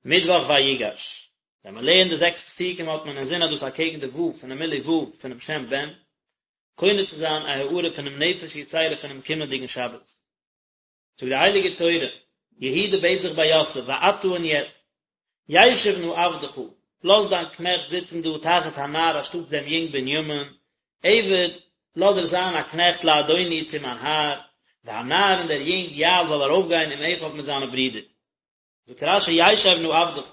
מיטוואך ויגש, ווען מען לערנט די זעקס פסוקים האט מען אינזין אז דאס אקעגן די ו' פונעם מילוי ו' פונעם שם בן, קונה צו זיין א הארה פונעם נפש יתירה פונעם קומענדיגן שבת. זאגט די הייליגע תורה, יהודה בעט זיך ביי יוסף, ועתה און יעצט, ישב נא עבדך, לאז דיין קנעכט זיצן דא תחת הנער אנשטאטס דעם יונג בנימין, עבד, לאז ער זיין א קנעכט לאדוני צו מיין האר, והנער און דער יונג יעל זאל ארויפגיין עם אחיו מיט זיינע ברידער. זאגט רש"י ישב נא עבדך,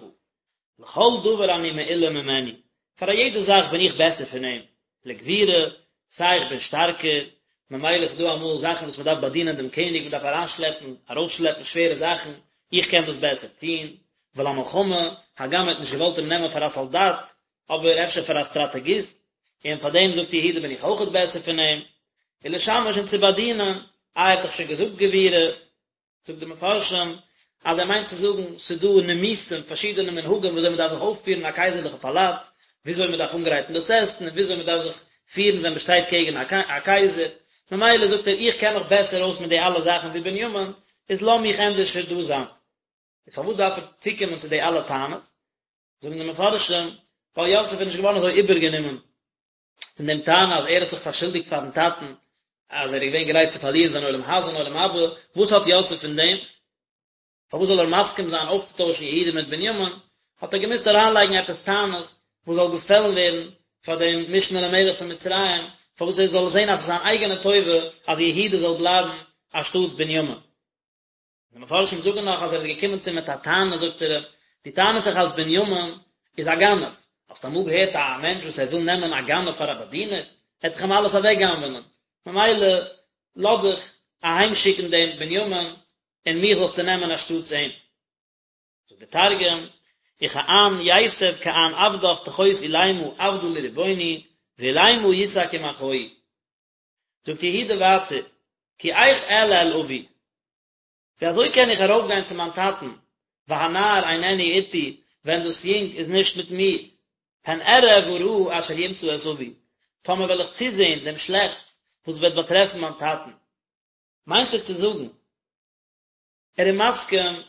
לכל דבר אני מעולה ממנו, פאר א יעדע זאך בין איך בעסער פון אים, לגבורה, סיי איך בין שטארקער, ממילא איז דא אמאל זאכן וואס מען דארף באדינען דעם קעניג, מען דארף אריינשלעפן, ארויפשלעפן שווערע זאכן, איך קען דאס בעסער טון, ולמלחמה, הגם ער האט נישט געוואלט אים נעמען פאר א סאלדאט, אבער אפשר פאר א סטראטעגיסט, און פאר דעם זאגט יהודה בין איך אויכעט בעסער פון אים, ולשמש און צו באדינען, איי ער האט דאך שוין געזאגט גבורה, זאגט די מפרשים אז ער מיינט צו זאגן ס'איז דא נימוסים, פארשידענע מנהגים וויאזוי מ'דארף זיך אויפפירן אין א קייזערליכע פאלאץ, וויאזוי מ'דארף אנגרייטן דאס עסן און וויאזוי מ'דארף זיך פירן ווען מ'שטייט קעגן א קייזער, ממילא זאגט ער איך קען מיך בעסער אויס מיט די אלע זאכן ווי בנימין, איז לאז מיך ענדערשער דא זיין. און פארוואס דארף ער צוקומען צו די אלע טענות? זאגן די מפרשים, ווייל יוסף איז נישט געווארן אזוי איבערגענומען פון דעם טענה אז ער האט זיך פארשולדיגט פארן טאטן אז ער איז געווען גרייט צו פארלירן זיין עולם הזה און עולם הבא, וואס האט יוסף פון דעם? פארוואס זאל ער מסכים זיין אויפצוטוישן יהודה מיט בנימין? האט ער געמוזט אריינלייגן עפעס טענות וואס זאל געפעלן ווערן פאר דעם משנה למלך פון מצרים, פארוואס ער זאל זען אז עס איז זיין אייגענע טובה אז יהודה זאל בלייבן אנשטאטס בנימין. די מפרשים זאגן נאך אז ער איז געקומען צו אים מיט א טענה, זאגט ער אים, דו טענה'סט דאך אז בנימין איז א גנב, האסט אמאל געהערט א מענטש וואס ער וויל נעמען א גנב פאר א באדינער, ער וועט דאך אים אלעס אוועק גנב'נען, ממילא לאז דיך אהיים שיקן דעם בנימין און מיך זאלסטו נעמען אנשטאטס אים. זאגט דער תרגום, וכען ייתב כען עבדך תחות עולימא עבדא לרבוני, ועולימא יסק עם אחוהי. זאגט יהודה ווייטער, כי איך אעלה אל אבי, ווי אזוי קען איך ארויפגיין צו מיין טאטן, והנער איננו אתי, ווען דאס יונג איז נישט מיט מיר, פן אראה ברעה אשר ימצא את אבי, טאמער וועל איך צוזען דעם שלעכטס וואס וועט באטרעפן מיין טאטן. מיינט ער צו זאגן, ער איז מסכים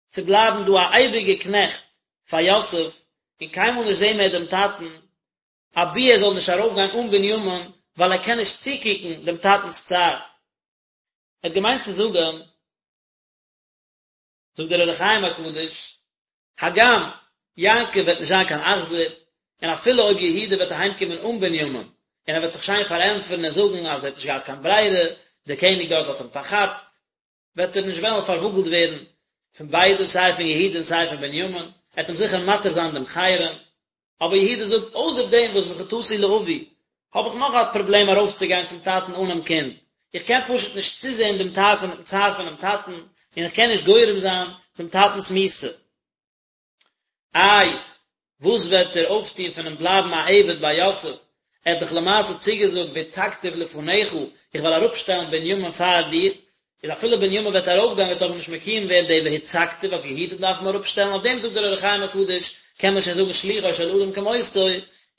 צו בלייבן דא א אייביגער קנעכט פאר יוסף, און קיינמאל נישט זען מער דעם טאטן, אבי ער זאל נישט ארויפגיין אן בנימין, ווייל ער קען נישט צוקוקן דעם טאטנ'ס צער. ער האט געמיינט צו זאגן, זאגט דער אור החיים הקדוש, הגם יעקב וועט נישט זיין קיין אכזר, און אפילו אויב יהודה וועט אהיימקומען אן בנימין, און ער וועט זיך שיין פארענטפערן און זאגן אז ער האט נישט געהאט קיין ברירה, דער קעניג דארט האט אים פארכאפט, וועט ער נישט וועלן פארוואגלט ווערן פון ביידע, סיי פון יהודה און סיי פון בנימין, ער וועט אים זיכער מתיר זיין דעם חרם. אבער יהודה זאגט, אויסער דעם וואס וחטאתי לאבי, האב איך נאך א פראבלעם ארויפצוגיין צום טאטן אנעם קינד, איך קען פשוט נישט צוזען דעם צער פונעם טאטן, און איך קען נישט גורם זיין דעם טאטנ'ס מיתה. איי, וואס וועט ער אויפטון פונעם בלייבן א עבד ביי יוסף? ער האט דאך למעשה צוגעזאגט והצגתיו לפניך, איך וועל אראפשטעלן בנימין פאר דיר, איז אפילו בנימין וועט ארויפגיין וועט אבער נישט מקוים ווערן די והצגתיו אז יהודה דארף אים אראפשטעלן, אויף דעם זאגט דער אור החיים הקדוש, קען מען שוין זאגן שלוחו של אדם כמותו,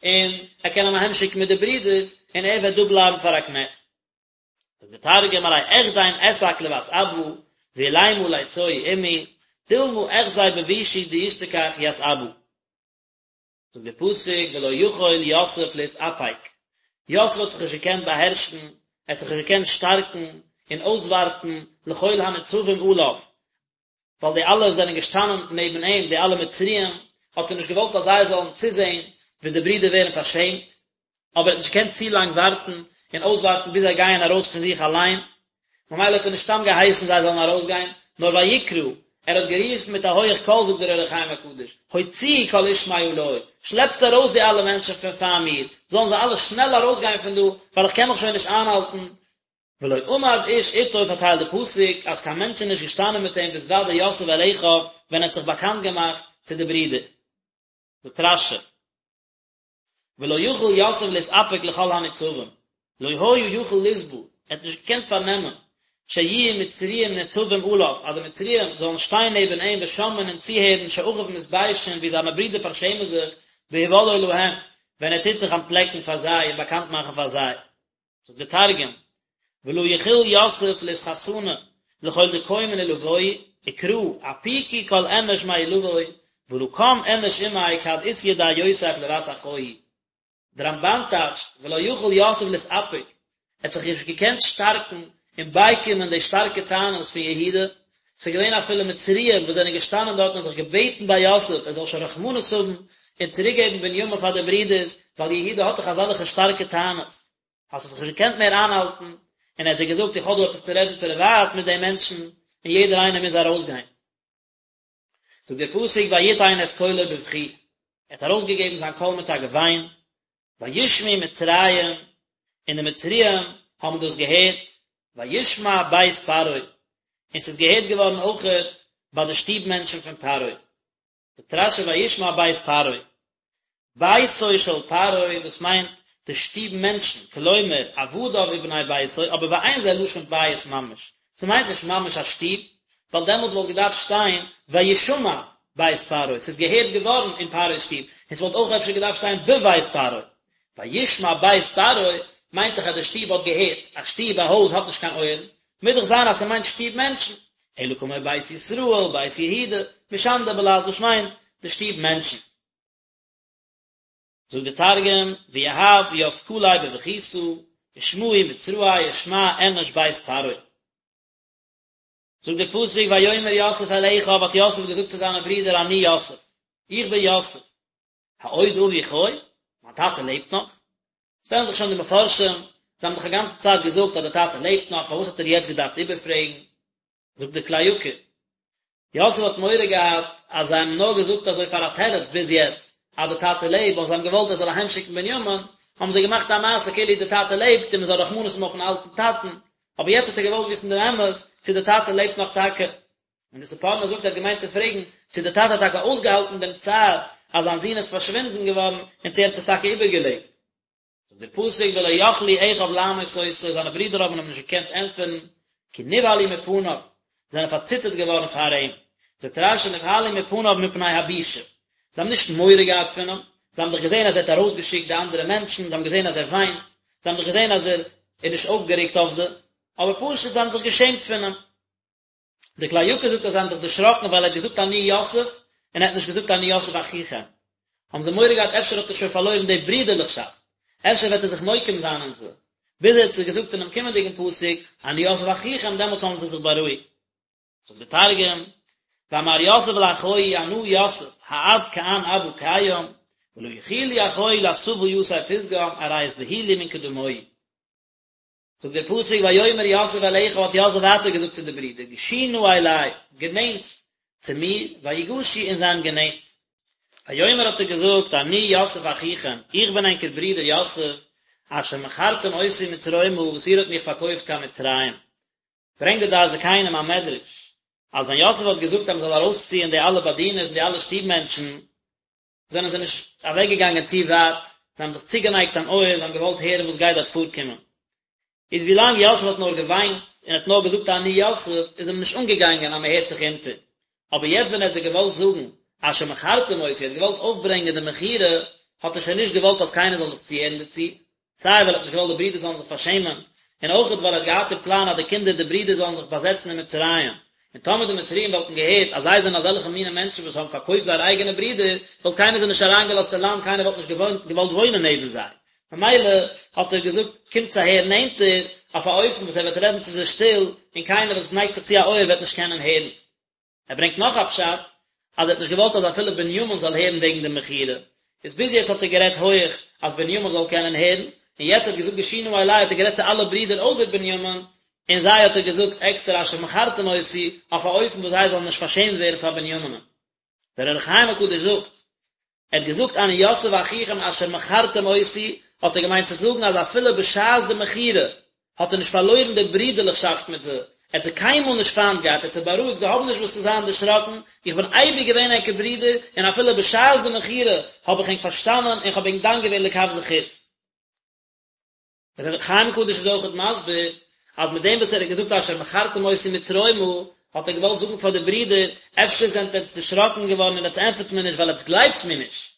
און ער קען אים אהיימשיקן מיט די ברידער, און ער וועט דא בלייבן פאר א קנעכט. זאגט דער תרגום ארי אחדין אסק לות אבא ועולימא ליתוהי עמי דלמא אחזי בבישא דישתכח ית אבא. זאגט דער פסוק ולא יכול יוסף להתאפק, יוסף האט זיך נישט געקענט באהערשן, ער האט זיך נישט געקענט שטארקן און אויסווארטן לכל הנצבים עליו, ווייל די אלע וואס זענען געשטאנען נעבן אים, די אלע מצריים, האט ער נישט געוואלט אז זיי זאלן צוזען ווי די ברידער ווערן פארשעמט, אבער ער האט נישט געקענט צו לאנג ווארטן און אויסווארטן ביז זיי גייען ארויס פון זיך אליין, ממילא האט ער נישט סתם געהייסן זיי זאלן ארויסגיין, נאר ויקרא, ער האט גערופן מיט א הויעך קול, זאגט דער אור החיים הקדוש, הוציאו כל איש מעלי, שלעפטס ארויס די אלע מענטשן פון פאר מיר, זאלן זיי אלע שנעל ארויסגיין פון דא, ווייל איך קען מיך שוין נישט איינהאלטן, ולא עמד איש איתו פארציילט די פסוק אז קיין מענטש איז נישט געשטאנען מיט אים בהתודע יוסף אל אחיו ווען ער האט זיך באקאנט געמאכט צו די ברידער. זאגט רש"י ולא יכול יוסף להתאפק לכל הניצבים לא היה יכול לסבול ער האט נישט געקענט פארנעמען שיהיו מצריים ניצבים עליו אז די מצריים זאלן שטיין נעבן אים ושומעין און צוהערן שאחיו מתביישין ווי זיינע ברידער פארשעמען זיך בהודעו להם ווען ער טוט זיך אנטפלעקן פאר זיי און באקאנט מאכן פאר זיי. זאגט דער תרגום, ולא יכיל יוסף לאתחסנא לכל דקיימין עלויה, וקרא, אפיקו כל אנש מעילוי. ולא קם אינש עמיה כד אית ידיה יוסף לות אחוהי. דער רמבן טייטשט ולא יכול יוסף להתאפק, ער האט זיך נישט געקענט שטארקן און בייקומען די שטארקע טענות פון יהודה, ס'איז געווען אפילו מצריים וואס זענען געשטאנען דארט און זיך געבעטן ביי יוסף ער זאל שוין רחמנות האבן און צוריקגעבן בנימין פאר די ברידערס, ווייל יהודה האט דאך אזעלכע שטארקע טענות. האט ער זיך נישט געקענט מער איינהאלטן, און ער האט זיי געזאגט איך האב דא עפעס צו רעדן פריוואט מיט די מענטשן, און יעדער איינער מוז ארויסגיין. זאגט דער פסוק ויתן את קולו בבכי, ער האט ארויסגעגעבן זיין קול מיט א געוויין, וישמעו מצרים, און די מצריים האבן דאס געהערט, וישמע בית פרעה, און ס'איז געהערט געווארן אויכעט ביי די שטוב מענטשן פון פרעה. זאגט רשי וישמע בית פרעה, ביתו של פרעה, דאס מיינט די שטוב מענטשן, כלומר עבדיו ובני ביתו, אבער ואין זה לשון בית ממש, ס'מיינט נישט ממש א שטוב, ווייל דעמאלטס וואלט געדארפט שטיין וישמע בית פרעה, ס'איז געהערט געווארן אין פרעה'ס שטוב, און ס'וואלט אויך אפשר געדארפט שטיין בבית פרעה. וישמע בית פרעה מיינט דאך אז די שטוב האט געהערט, א שטוב, א הויז האט נישט קיין אויערן, מוז דאך זיין אז ס'מיינט שטוב מענטשן, אלא כמו בית ישראל, בית יהודה, משנדא בלעז דאס מיינט די שטוב מענטשן. זאגט די תרגום, ויהב ית קליה בבכיתא, ושמעו מצראי ושמע אינש בית פרעה. זאגט דער פסוק ויאמר יוסף אל אחיו האט יוסף געזאגט צו זיינע ברידער אני יוסף, איך בין יוסף, העוד אבי חי? מיין טאטע לעבט נאך? שטעלן זיך שוין די מפרשים, זיי האבן דאך א גאנצע צייט געזאגט אז דער טאטע לעבט נאך, פארוואס האט ער יעצט געדארפט איבערפרעגן? זאגט דער כלי יקר, יוסף האט מורא געהאט אז זיי האבן נאר געזאגט אזוי פאר א תירוץ ביז יעצט אז דער טאטע לעבט, ווייל זיי האבן געוואלט ער זאל אהיים שיקן בנימין, האבן זיי געמאכט א מעשה כאילו דער טאטע לעבט און מען זאל רחמנות האבן אויפן אלטן טאטן, אבער יעצט האט ער געוואלט וויסן דעם אמת צו דער טאטע לעבט נאך טאקע. און די ספורנו זאגט ער האט געמיינט צו פרעגן צו דער טאטע האט טאקע אויסגעהאלטן דעם צער אז זיין זון איז פארשווינדן געווארן און צו ער האט עס טאקע איבערגעלעבט. זאגט דער פסוק ולא יכלו אחיו לענות אותו, זיינע ברידער האבן אים נישט געקענט ענטפערן, כי נבהלו מפניו, זיי זענען פארציטערט געווארן פאר אים. זאגט רשי נבהלו מפניו מפני הבושה, זיי האבן נישט מורא געהאט פון אים, זיי האבן דאך געזען אז ער האט ארויסגעשיקט די אנדערע מענטשן, זיי האבן געזען אז ער וויינט, זיי האבן דאך געזען אז ער איז נישט אויפגערעגט אויף זיי, אבער פשוט זיי האבן זיך געשעמט פון אים. די כלי יקר זאגט אז זיי האבן זיך דערשראקן ווייל ער האט געזאגט אני יוסף און ער האט נישט געזאגט אני יוסף אחיכם. האבן זיי מורא געהאט אפשר האט ער שוין פארלוירן די ברידערליכשאפט, אפשר וועט ער זיך נוקם זיין אין זיי. ביז ער האט זיי געזאגט אינעם קומענדיגן פסוק אני יוסף אחיכם דעמאלטס האבן זיי זיך בארואיגט. זאגט די תרגום, ואמר יוסף לאחוהי אנא יוסף העד כען אבא קיים ולא יכילו אחוהי לאתבא יתיה פתגם ארי אתבהילו מן קדמוהי. זאגט דער פסוק ויאמר יוסף אל אחיו האט יוסף ווייטער געזאגט צו די ברידער גשו נא אלי, גענענטס צו מיר, ויגשו און זיי האבן גענענט. ויאמר האט ער געזאגט אני יוסף אחיכם, איך בין ענקער ברודער יוסף, אשר מכרתם אותי מצרימה וואס איר האט מיך פארקויפט קיין מצרים. ברענגט די דעת זקנים א מדרש, אז ווען יוסף האט געזאגט אז מען זאל ארויסציען די אלע באדינערס און די אלע שטוב מענטשן, זענען זיי נישט אוועקגעגאנגען צו ווייט, זיי האבן זיך צוגענייגט אן אויער, זיי האבן געוואלט הערן וואס גייט דארט פארקומען. איז ווי לאנג יוסף האט נאר געוויינט און האט נאר געזאגט אני יוסף, איז אים נישט אנגעגאנגען אז מען הערט זיך אונטער. אבער יעצט ווען ער האט זיי געוואלט זאגן אשר מכרתם אותי, ער האט געוואלט אויפברענגען די מכירה, האט ער שוין נישט געוואלט אז קיינער זאל זיך צוהערן דערצו, סיי ווייל ער האט נישט געוואלט די ברידער זאלן זיך פארשעמען, און אויכעט ווייל ער האט געהאט אין פלאן אז די קינדער די ברידער זאלן זיך באזעצן אין מצרים, און טאמער די מצריים וואלטן געהערט אז זיי זענען אזעלכע מיני מענטשן וואס האבן פארקויפט זייערע אייגענע ברידער, וואלט קיינער זיי נישט אריינגעלאזט אין לאנד, קיינער וואלט נישט געוואלט וואוינען נעבן זיי. ממילא האט ער געזאגט, קומטס אהער נענטער, אויף א אופן וואס ער וועט רעדן צו זיי שטיל, און קיינער וואס נייגט זיך צו א אויער וועט נישט קענען הערן. ער ברענגט נאך א פשט, אז ער האט נישט געוואלט אז אפילו בנימין זאל הערן וועגן די מכירה, איז ביז יעצט האט ער גערעדט הויעך אז בנימין זאל קענען הערן, און יעצט האט געזאגט גשו נא אלי האט ער גערעדט צו אלע ברידער אויסער בנימין, און זיי האט ער געזאגט עקסטער אשר מכרתם אותי, אויף א אופן וואס זיי זאלן נישט פארשעמט ווערן פאר בנימינ'ן. דער אור החיים הקדוש זאגט, ער האט געזאגט אני יוסף אחיכם אשר מכרתם אותי, האט ער געמיינט צו זאגן אז אפילו בשעת די מכירה האט ער נישט פארלוירן די ברידערליכשאפט מיט זיי, ער האט זיי קיינמאל נישט פיינט געהאט, ער האט זיי בארואיגט, זיי האבן נישט וואס צו זיין דערשראקן, איך בין אייביג געווען ענקער ברודער, און אפילו בשעת די מכירה האב איך ענק פארשטאנען און איך האב ענק דן געווען לכף זכות. דער אור החיים הקדוש איז אויכעט מסביר אז מיט דעם וואס ער האט געזאגט אשר מכרתם אותי מצרימה האט ער געוואלט זאגן פאר די ברידער, אפשר זענט עטץ דערשראקן געווארן און עטץ ענטפערטס מיר נישט ווייל עטץ גלייבטס מיר נישט,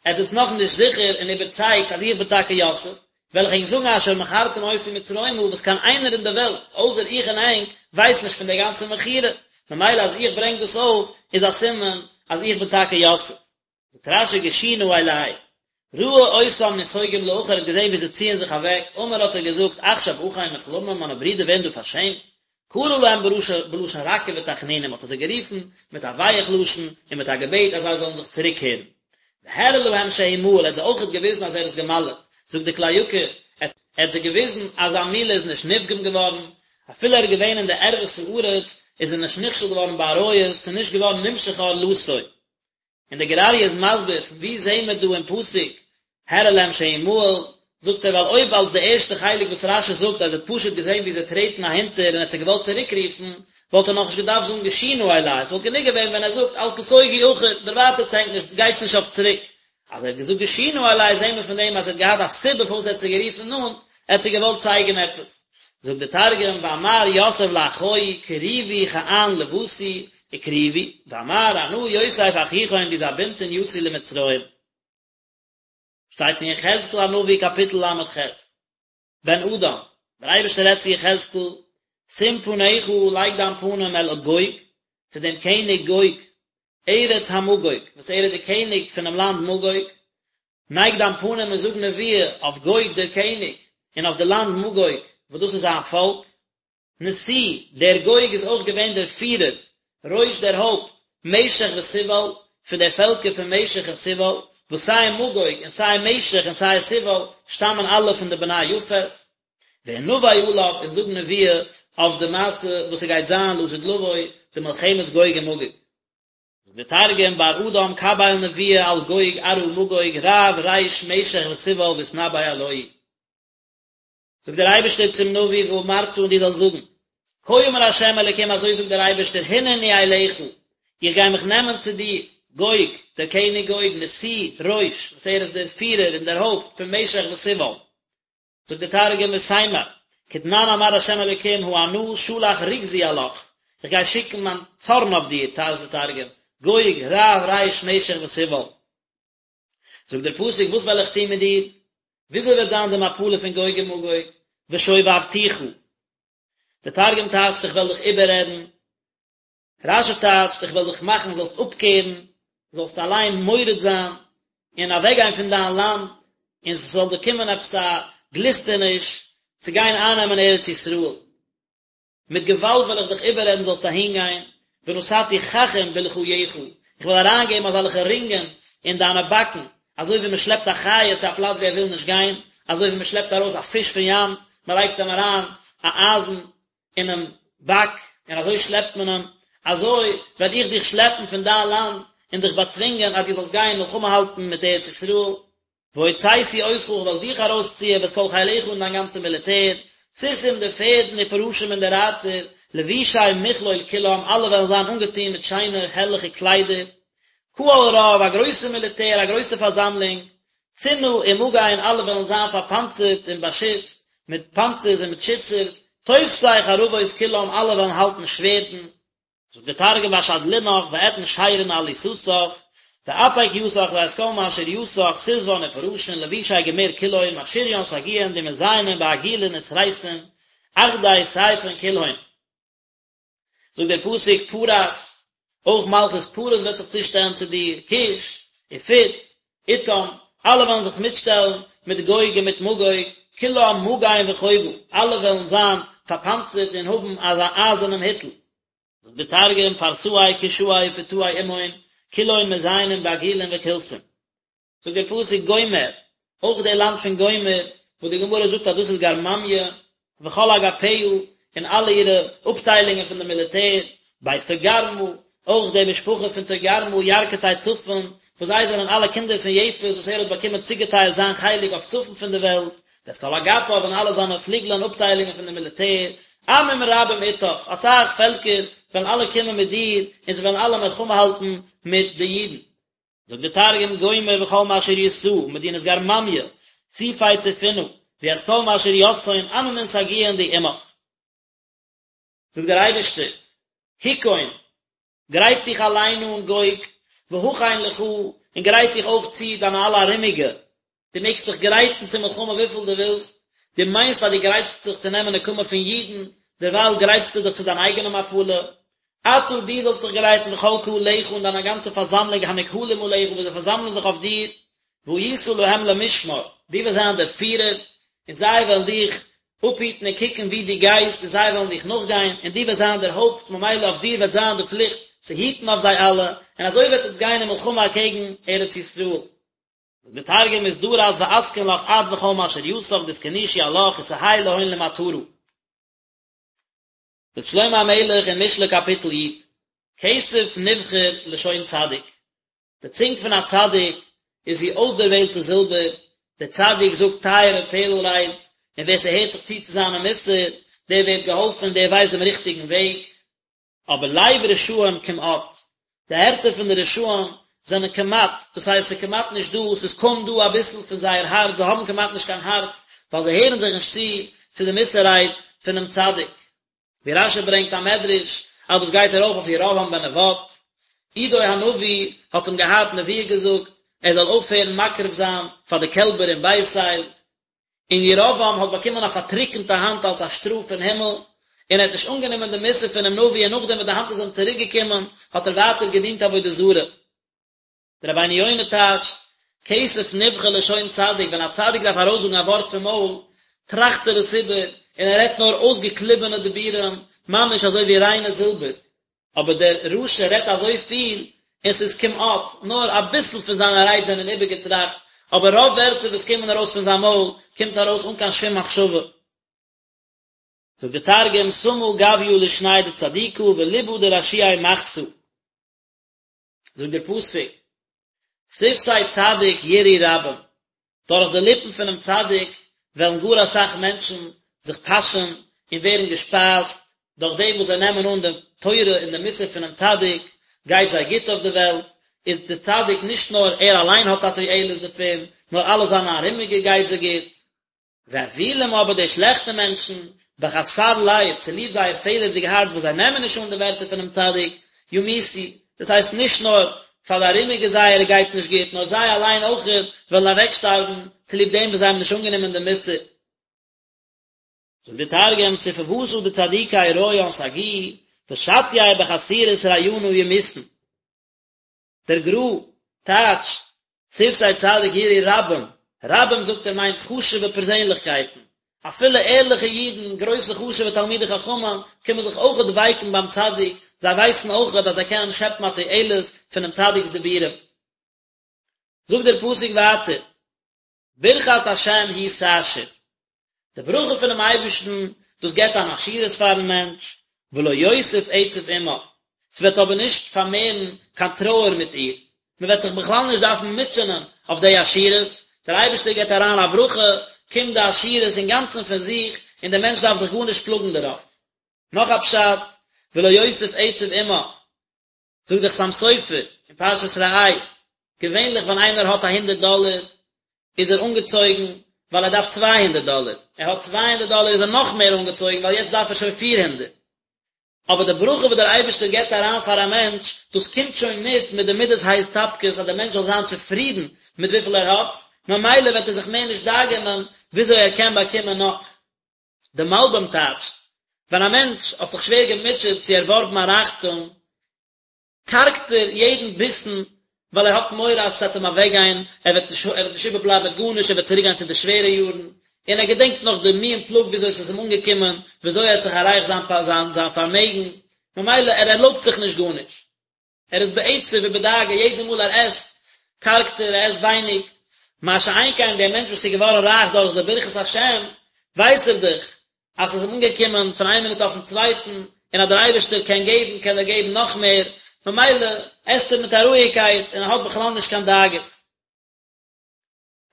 עטץ זענטס נאכנישט זיכער און איבערצייגט אז איך בין טאקע יוסף, וועל איך ענק זאגן אשר מכרתם אותי מצרימה וואס קיין איינער אין די וועלט אויסער איך און ענק ווייסט נישט פון די גאנצע מכירה, ממילא אז איך ברענג דאס אויף איז א סימן. אז איך בין טאקע יוסף. זאגט רש"י גשו נא אלי, ראה אותם נסוגים לאחור ער האט געזען ווי זיי ציען זיך אוועק, אמר האט ער געזאגט עכשיו אחי נכלמים מיינע ברידער ווערן דא פארשעמט, קרא להם בלשון רכה ותחנונים האט ער זיי גערופן מיט א ווייעך לשון און מיט א געבעט אז זיי זאלן זיך צוריקקערן. והראה להם שהוא מהול ער האט זיי אויכעט געוויזן אז ער איז געמל'עט, זאגט די כלי יקר, ער האט זיי געוויזן אז זיין מילה איז נישט נפגם געווארן, אפילו ער איז געווען אין די ערוות הארץ איז ער נישט נכשל געווארן בעריות, ס'איז נישט געווארן נמשך ערלתו. און דער גור אריה איז מסביר פון וואו זעהן מיר דא אין פסוק הראה להם שהוא מהול, זאגט ער ווייל אויב אלס די ערשטע חלק וואס רש"י זאגט אז ער האט פשוט געזעהן ווי זיי טרעטן אהינטער און ער האט זיי געוואלט צוריק רופן, וואלט ער נאכנישט געדארפט זאגן גשו נא אלי, עס וואלט גענוג געווען ווען ער זאגט אל תסוגו אחור, דערווייטערטס ענק נישט, גייטס נישט אויף צוריק. אז ער האט געזאגט גשו נא אלי זעהן מיר פון דעם אז ער האט געהאט א סיבה פארוואס ער האט זיי גערופן נאנט, ער האט זיי געוואלט צייגן עפעס. זאגט דער תרגום ואמר יוסף לאחיי קריבו כען לותי וקריבו, ואמר אנא יוסף אחיכון די זבינתון יתי למצרים. שטייט אין יחזקאל הנביא קאפיטל ל"ח, בן אדם, דער אייבערשטער רעדט צו יחזקאל, שים פניך, לייג דיין פנים אל גוג, צו דעם קעניג גוג, ארץ המגוג, וואס ער איז דער קעניג פונעם לאנד מגוג, נייג דיין פנים און זאג נבואה אויף גוג דער קעניג, און אויף די לאנד מגוג, וואס דאס איז זיין פאלק. נשיא, דער גוג איז אויך געווען דער פירער, ראש דער הויפט, משך ותובל, פון די פעלקער פון משך און תובל, וואס סיי מגוג און סיי משך און סיי תובל שטאמען אלע פון די בני יפת. והנבא עליו און זאג נבואה אויף די מעשה וואס ס'גייט זיין לעתיד לבוא, די מלחמת גוג ומגוג. זאגט דער תרגום, בר אדם קביל נבואה על גוג ארעא מגוג רב ריש משך ותובל ואתנבי עלוהי. זאגט דער אייבערשטער צום נביא ואמרת און דו זאלסט זאגן, כה אמר ה' אלוקים אזוי זאגט דער אייבערשטער הנני אליך, איך גיי מיך נעמען צו דיר, גוג, דער קעניג גוג, נשיא, ראש, וואס ער איז דער פירער און דער הויפט פון משך ותובל. זאגט דער תרגום ותימר, כדנן אמר ה' אלוקים הא אנא שלח רוגזי עלך, איך גיי שיקן מיין צארן אויף דיר, טייטשט דער תרגום, גוג, רב ריש משך ותובל. זאגט דער פסוק, וואס וועל איך טון מיט דיר? וויאזוי וועט זיין די מפלה פון גוג ומגוג? ושובבתיך. דער תרגום טייטשט איך וועל דיך איבעררעדן. רש"י טייטשט איך וועל דיך מאכן זאלסט אפקערן, זאלסט אליין מורד זיין, און אוועקגיין פון דיין לאנד, און ס'זאל דיר קומען עפעס א גליסטעניש צו גיין אייננעמען ארץ ישראל. מיט געוואלד וועל איך דיך איבעררעדן זאלסט אהינגיין, ונתתי ככים בלחייך, איך וועל אריינגעבן אזעלכע רינגען אין דיינע באקן, אזוי ווי מען שלעפט א חיה צו א פלאץ וואו ער וויל נישט גיין, אזוי ווי מען שלעפט ארויס א פיש פון ים, מען לייגט אים אריין א אייזן אינעם באק, און אזוי שלעפט מען אים, אזוי וועל איך דיך שלעפן פון דיין לאנד, און דיך באצווינגען אז דו זאלסט גיין מלחמה האלטן מיט ארץ ישראל. והוצאתי אותך, איך וועל דיך ארויסציען, ואת כל חילך און דיין גאנצע מיליטער, סוסים די פערדן ופרשים און די רייטער, לבושי מכלול כולם, אלע וועלן זיין אנגעטון מיט שיינע הערליכע קליידער, קהל רב, א גרויסע מיליטער, א גרויסע פארזאמלונג, צנה ומגן, אלע וועלן זיין פארפאנצערט און באשיצט, מיט פאנצערס און מיט שיצערס, תופסי חרבות כולם, אלע וועלן האלטן שווערדן. זאגט דער תרגום ואשדלינך ואתן שירין על עיסתך, ואפיק יתך ואת כל משריתך סוסוון ופרשין לבושי גמיר כולהון משריין סגיאין די מזיינין בעגילין וסריסין אחדי סיפין כולהון. זאגט דער פסוק פרס, אויך מלכות פרס וועט זיך צושטעלן צו דיר, כוש, ופוט, אתם, אלע וועלן זיך מיטשטעלן מיט גוג און מיט מגוג, כולם מגן וחובה, אלע וועלן זיין פארפאנצערט און האבן אזא אייזערנעם היטל. זאגט דער תרגום, פרסאי כושאי ופוטאי עמהון, כולהון מזיינין בעגילין וקולסין. זאגט דער פסוק גומר, אויך דער לאנד פון גומר, וואס די גמרא זאגט אז דאס איז גרממיא, וכל אגפיה, און אלע אירע אפטיילונגען פון די מיליטער, בית תוגרמה, אויך די משפחה פון תוגרמה, ירכתי צפון, וואס זיי זענען אלע קינדער פון יפת וואס ער האט באקומען צוגעטיילט זיין חלק אויף צפון פון די וועלט, ואת כל אגפיו און אלע זיינע פליגלען אפטיילונגען פון די מיליטער, עמים רבים אתך, אסאך פעלקער וועלן אלע קומען מיט דיר, און זיי וועלן אלע מלחמה האלטן מיט די אידן. זאגט דער תרגום גומר וכל משריתהא מדינת גרממיא סייפי צפונא וית כל משריתהון עממין סגיאין די עמך. זאגט דער אייבערשטער, היכון, גרייט דיך אליין אן גוג, והכן לך, און גרייט דיך אויך צו דיינע אלע ארומיגע, דו מעגסט דיך גרייטן צו מלחמה וויפיל דו ווילסט, דו מיינסט אז דו גרייטסט זיך צו נעמען נקמה פון אידן, דערווייל גרייטסטו דיך צו דיין אייגענע מפלה. אתה דו זאלסט דיך גרייטן וכל קהלך און דיינע גאנצע פארזאמלונג הנקהלים עליך וואס זיי פארזאמלען זיך אויף דיר, והיית להם למשמר, דו וועסט זיין דער פירער, און זיי וועלן דיך אפהיטן און קוקן וואו דו גייסט, און זיי וועלן דיך נאכגיין, און דו וועסט זיין דער הויפט, ממילא אויף דיר וועט זיין די פליכט צו היטן אויף זיי אלע, און אזוי וועט עטס גיין אין מלחמה אקעגן ארץ ישראל. זאגט דער תרגום אתדרס ואתקן לך את וכל משריתך דאתכנישו עלך ותהי להון למטרא. זאגט שלמה המלך אין משלי קאפיטל י', כסף נבחר לשון צדיק, די צונג פון א צדיק איז ווי אויסדערוועלטע זילבער, דער צדיק זאגט טייערע פערל רייד, און ווער ס'הערט זיך צו צו זיינע מוסר, דער ווערט געהאלפן, דער ווייסט דעם ריכטיגן וועג. אבער לב רשעים כמעט, די הערצער פון די רשעים זענען כמעט, דאס הייסט ס'איז כמעט נישט דא, ס'איז קוים דא אביסל פון זייער הארץ, זיי האבן כמעט נישט קיין הארץ, ווייל זיי הערן זיך נישט צו צו די מוסר רייד פונעם צדיק. ווי רש"י ברענגט א מדרש אז דאס גייט ארויף אויף ירבעם בן נבט, עידו הנביא האט אים געהאט נבואה געזאגט ער זאל אויפהערן מקריב זיין פאר די קעלבער אין בית אל, און ירבעם האט באקומען א פארטריקענטע האנט אלס א שטראף פון הימל, און ער האט נישט אנגענומען די מוסר פונעם נביא און נאכדעם וואס די האנט איז אים צוריק געקומען האט ער ווייטער געדינט עבודה זרה. דער רבינו יונה טייטשט, כסף נבחר לשון צדיק, ווען א צדיק דארף ארויסזאגן א ווארט פון מויל, טראכט ער עס איבער, און ער רעדט נאר אויסגעקליבענע דיבורים, ממש אזוי ווי ריינע זילבער. אבער דער רשע רעדט אזוי פיל, און ס'איז כמעט, נאר אביסל פון זיינע רייד זענען איבערגעטראכט, אבער רוב ווערטער וואס קומען ארויס פון זיין מויל, קומט ארויס אן קיין שום מחשבה. זאגט דער תרגום, סמא גויא לישניה דצדיקא וליבא דרשיעי מחתא. זאגט דער פסוק, שפתי צדיק ירעו רבים, דורך די ליפן פונעם צדיק וועלן גאר אסאך מענטשן זיך פאשען און ווערן געשפייזט, דורך דעם וואס זיי נעמען אן די תורה און די מוסר פונעם צדיק, גייט זיי גוט אויף די וועלט, איז דער צדיק נישט נאר ער אליין האט א תועלת דערפון, נאר אלע זיינע ארומיגע גייט זיי גוט. ואוילים אבער די שלעכטע מענטשן, בחסר לב, צוליב זייער פעלערדיג הארץ וואס זיי נעמען נישט אן די ווערטער פונעם צדיק, ימותו, דאס הייסט נישט נאר פאר די ארומיגע זייערע גייט נישט גוט, נאר זיי אליין אויכעט וועלן אוועקשטארבן צוליב דעם וואס זיי האבן נישט אנגענומען די מוסר. זאגט דער תרגום, ספוותא דצדיקי רעיין סגיאי, ושטיי בחסירות רעינא ימותון. דער גר"א טייטשט שפתי צדיק ירעו רבים, רבים זאגט ער מיינט חשוב'ע פערזענליכקייטן, אפילו ערליכע אידן, גרויסע חשוב'ע תלמידי חכמים, קומען זיך אויכעט ווייקן ביים צדיק, זיי ווייסן אויכעט אז זיי קענען שעפן א תועלת פונעם צדיק'ס דיבורים. זאגט דער פסוק ווייטער. ברכת השם היא תעשיר, די ברכה פונעם אייבערשטן, דאס געבט אן עשירות פארן מענטש, ולא יוסיף עצב עמה, ס'וועט אבער נישט פארמערן קיין טרויער מיט איר, מען וועט זיך בכלל נישט דארפן מוטשענען אויף די עשירות, דער אייבערשטער געבט אריין א ברכה, קומט די עשירות אינגאנצן פון זיך, און דער מענטש דארף זיך גארנישט פלאגן דערויף. נאך א פשט, ולא יוסיף עצב עמה, זאגט דער חתם סופר אין פרשת ראה, געווענליך ווען איינער האט א הונדערט דאלער איז ער אנגעצויגן ווייל ער דארף 200 דאלער, ער האט 200 דאלער איז ער נאך מער אנגעצויגן ווייל יעצט דארף ער שוין 400. אבער די ברכה וואס דער אייבערשטער געבט אריין פאר א מענטש, דאס קומט שוין מיט מיט די מידת ההסתפקות אז דער מענטש זאל זיין צופרידן מיט וויפיל ער האט, ממילא וועט ער זיך מער נישט דאגה'נען וויאזוי ער קען באקומען נאך. די מלבים טייטשט, ווען א מענטש האט זיך שווער געמוטשעט צו ערווארבן א רייכטום, קארגט ער יעדן ביסן, ווייל ער האט מורא אז עס וועט אים אוועקגיין, ער וועט נישט ער וועט נישט איבערבלייבן מיט גארנישט, ער וועט צוריקגיין צו די שווערע יארן, און ער געדענקט נאך די מי און פלאג וויאזוי עס איז אים אנגעקומען, וויאזוי ער האט זיך עררייכט זיין זיין זיין פארמעגן, ממילא ער ערלויבט זיך נישט גארנישט. ער איז בעצב ובדאגה יעדע מאל ער עסט, קארגט ער, ער עסט ווייניג. מה שאין כן דער מענטש וואס איז געווארן רייך דורך די ברכת השם, ווייס ער דאך אז עס איז אים אנגעקומען פון איין מינוט אויפן צווייטן, און אז דער אייבערשטער קען געבן, קען ער געבן נאך מער, ממילא עסט ער מיט א רואיגקייט און ער האט בכלל נישט קיין דאגות.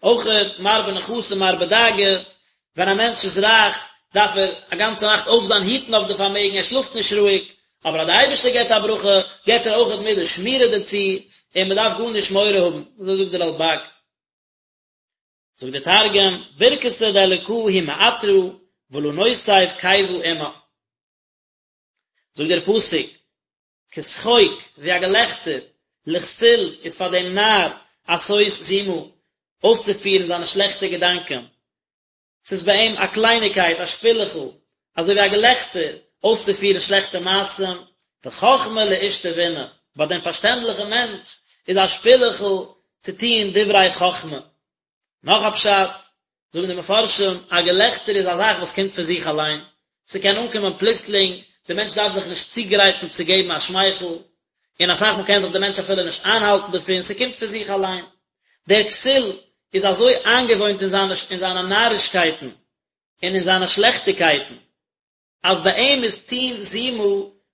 אויכעט מרבה נכסים מרבה דאגה, ווען א מענטש איז רייך דארף ער א גאנצע נאכט אויפזיין היטן אויף די פארמעגן, ער שלאפט נישט רואיג, אבער אז די אייבערשטער געבט א ברכה געבט ער אויכעט מיט די שמירה דערצו, און מען דארף גארנישט מורא האבן, אזוי זאגט דער רלבג. זאגט דער תרגום, ברכתא דאלקא היא מעטרא ולא נוסיף כיבא עמה. זאגט דער פסוק, כּשחוק, װי אַ געלעכטער, לכסיל איז פֿאַר דעם נאַר עשות זימה, אױסצופֿירן זײַנע שלעכטע געדאַנקען. ס'איז בײַ אים אַ קלײניקײט, אַ שפּילעכל, אַזױ װי אַ געלעכטער, אױסצופֿירן שלעכטע מעשׂים. וחכמה לאיש תבונה, ביי דעם פארשטענדליכן מענטש איז א שפילעכל צו טון דברי חכמה. נאך א פשט, זאגן די מפרשים, א געלעכטער איז א זאך וואס קומט פון זיך אליין, ס'קען אנקומען פלוצלינג, דער מענטש דארף זיך נישט צוגרייטן צו געבן א שמייכל, און אסאך מאל קען זיך דער מענטש אפילו נישט איינהאלטן דערפון, ס'קומט פון זיך אליין. דער כסיל איז אזוי איינגעוואוינט אין זיינע אין זיינע נארישקייטן און אין זיינע שלעכטיגקייטן, אז ביי אים איז טון זימה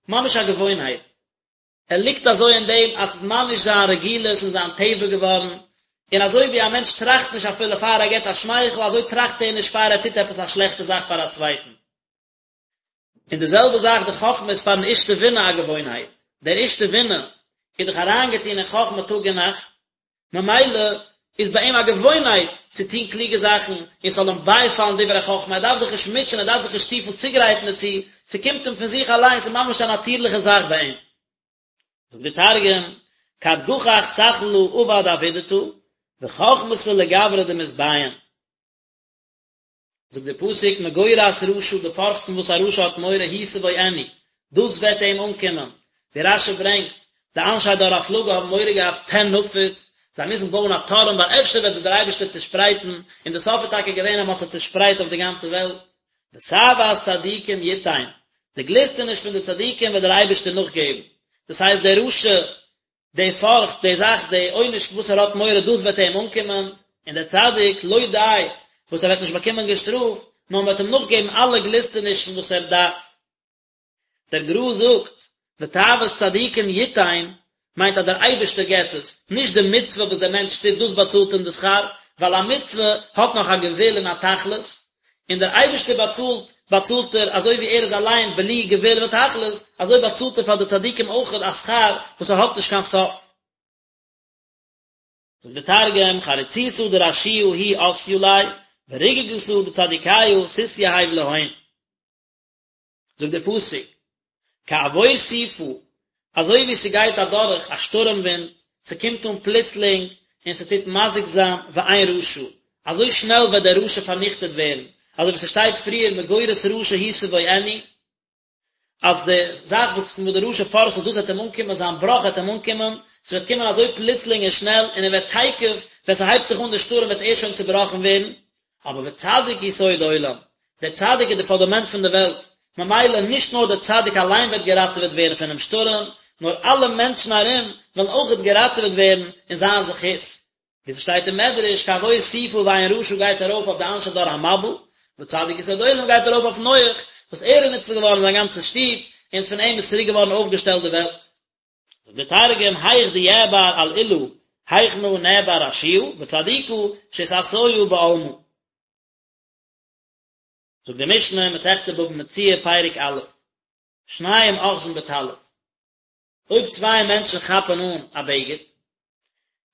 ממש א געוואוינהייט. ער ליגט אזוי אין דעם אז ס'איז ממש זיין רגילות און זיין טבע געווארן, און אזוי ווי א מענטש טראכט נישט אפילו פאר ער געבט א שמייכל, אזוי טראכט ער נישט פאר ער טוט עפעס א שלעכטע זאך פאר א צווייטן. און די זעלבע זאך די חכמה איז פארן איש תבונה א געוואוינהייט, דער איש תבונה איז דאך אריינגעטון אין חכמה טאג און נאכט, ממילא איז ביי אים א געוואוינהייט צו טון קלוגע זאכן און ס'זאל אים בייפאלן דברי חכמה, ער דארף זיך נישט מוטשען, ער דארף זיך נישט צופיל צוגרייטן דערצו, ס'קומט אים פון זיך אליין, ס'איז ממש א נאטירליכע זאך ביי אים. זאגט דער תרגום, כד גחך סכלא עבד עבידתא, וחכמתא לגברא דמתביין. זאגט דער פסוק מגורת רשע די פארכט פון וואס א רשע האט מורא היא תבואנו, דאס וועט אים אנקומען, ווי רש"י ברענגט, די אנשי דור הפלגה האבן מורא געהאט פן נפוץ, זיי מוזן בויען א טורעם ווייל אפשר וועט זיי דער אייבערשטער צושפרייטן, און די סוף איז טאקע געווען אז מען האט זיי צושפרייט אויף די גאנצע וועלט. ותאות צדיקים יתן, די גליסטעניש פון די צדיקים וועט דער אייבערשטער נאכגעבן, דאס הייסט דער רשע די פארכט, די זאך, די עונש וואס ער האט מורא דאס וועט איהם אנקומען, און דער צדיק, לא די וואס ער וועט נישט באקומען געשטראפט, נאר מען וועט אים נאכגעבן אלע גליסטענישן וואס ער דארף. דער גר"א זאגט, ותאוות צדיקים יתן, מיינט אז דער אייבערשטער געבט עס, נישט די מצוה וואס דער מענטש טוט דאס באצאלט אים די שכר, ווייל א מצוה האט נאך א גבול און א תכלית, און דער אייבערשטער באצאלט, באצאלט ער אזוי ווי ער איז אליין בלי גבול ותכלית, אזוי באצאלט ער פאר די צדיקים אויכעט א שכר וואס ער האט נישט קיין סוף. זאגט דער תרגום, חריצותא דרשיעא היא אתיא ליה, ורגגתא דצדיקיא תתיהב להון. זאגט דער פסוק, כעבור סופה, אזוי ווי ס'גייט אדורך א שטורעם ווינט, ס'קומט אן פלוצלינג און ס'טוט מזיק זיין ואין רשע, אזוי שנעל וועט דער רשע פארניכטעט ווערן, אזוי ווי ס'שטייט פריער מגורת רשע היא תבואנו, אז די זאך וואס פון וואס דער רשע פארכט זיך דאס וועט אים אנקומען, זיין בראך וועט אים אנקומען, ס'וועט קומען אזוי פלוצלינג און שנעל, און ער וועט תיכף, ווען ס'הייבט זיך אן דער שטורעם וועט ער שוין צובראכן ווערן, אבער וצדיק יסוד עולם, דער צדיק איז די פונדאמענט פון די וועלט, ממילא נישט נאר דער צדיק אליין וועט געראטעוועט ווערן פונעם שטורעם, נאר אלע מענטשן ארום וועלן אויכעט געראטעוועט ווערן אין זיין זכות. ווי ס'שטייט אין מדרש, כעבור סופה ואין רשע גייט ארויף אויף די אנשי דור המבול, וצדיק יסוד עולם גייט ארויף אויף נח, וואס ער איז ניצול געווארן זיין גאנצע שטוב, און פון אים איז צוריק געווארן אויפגעשטעלט די וועלט. זאגט דער תרגום, היך דיעבר על עולא, היכנא נעבר רשיעא, וצדיקא שתתיא בעלמא. זאגט די משנה, מסכת בבא מציעא, פרק א', שניים אוחזין בטלית, אויב צוויי מענטשן כאפן אן א בגד,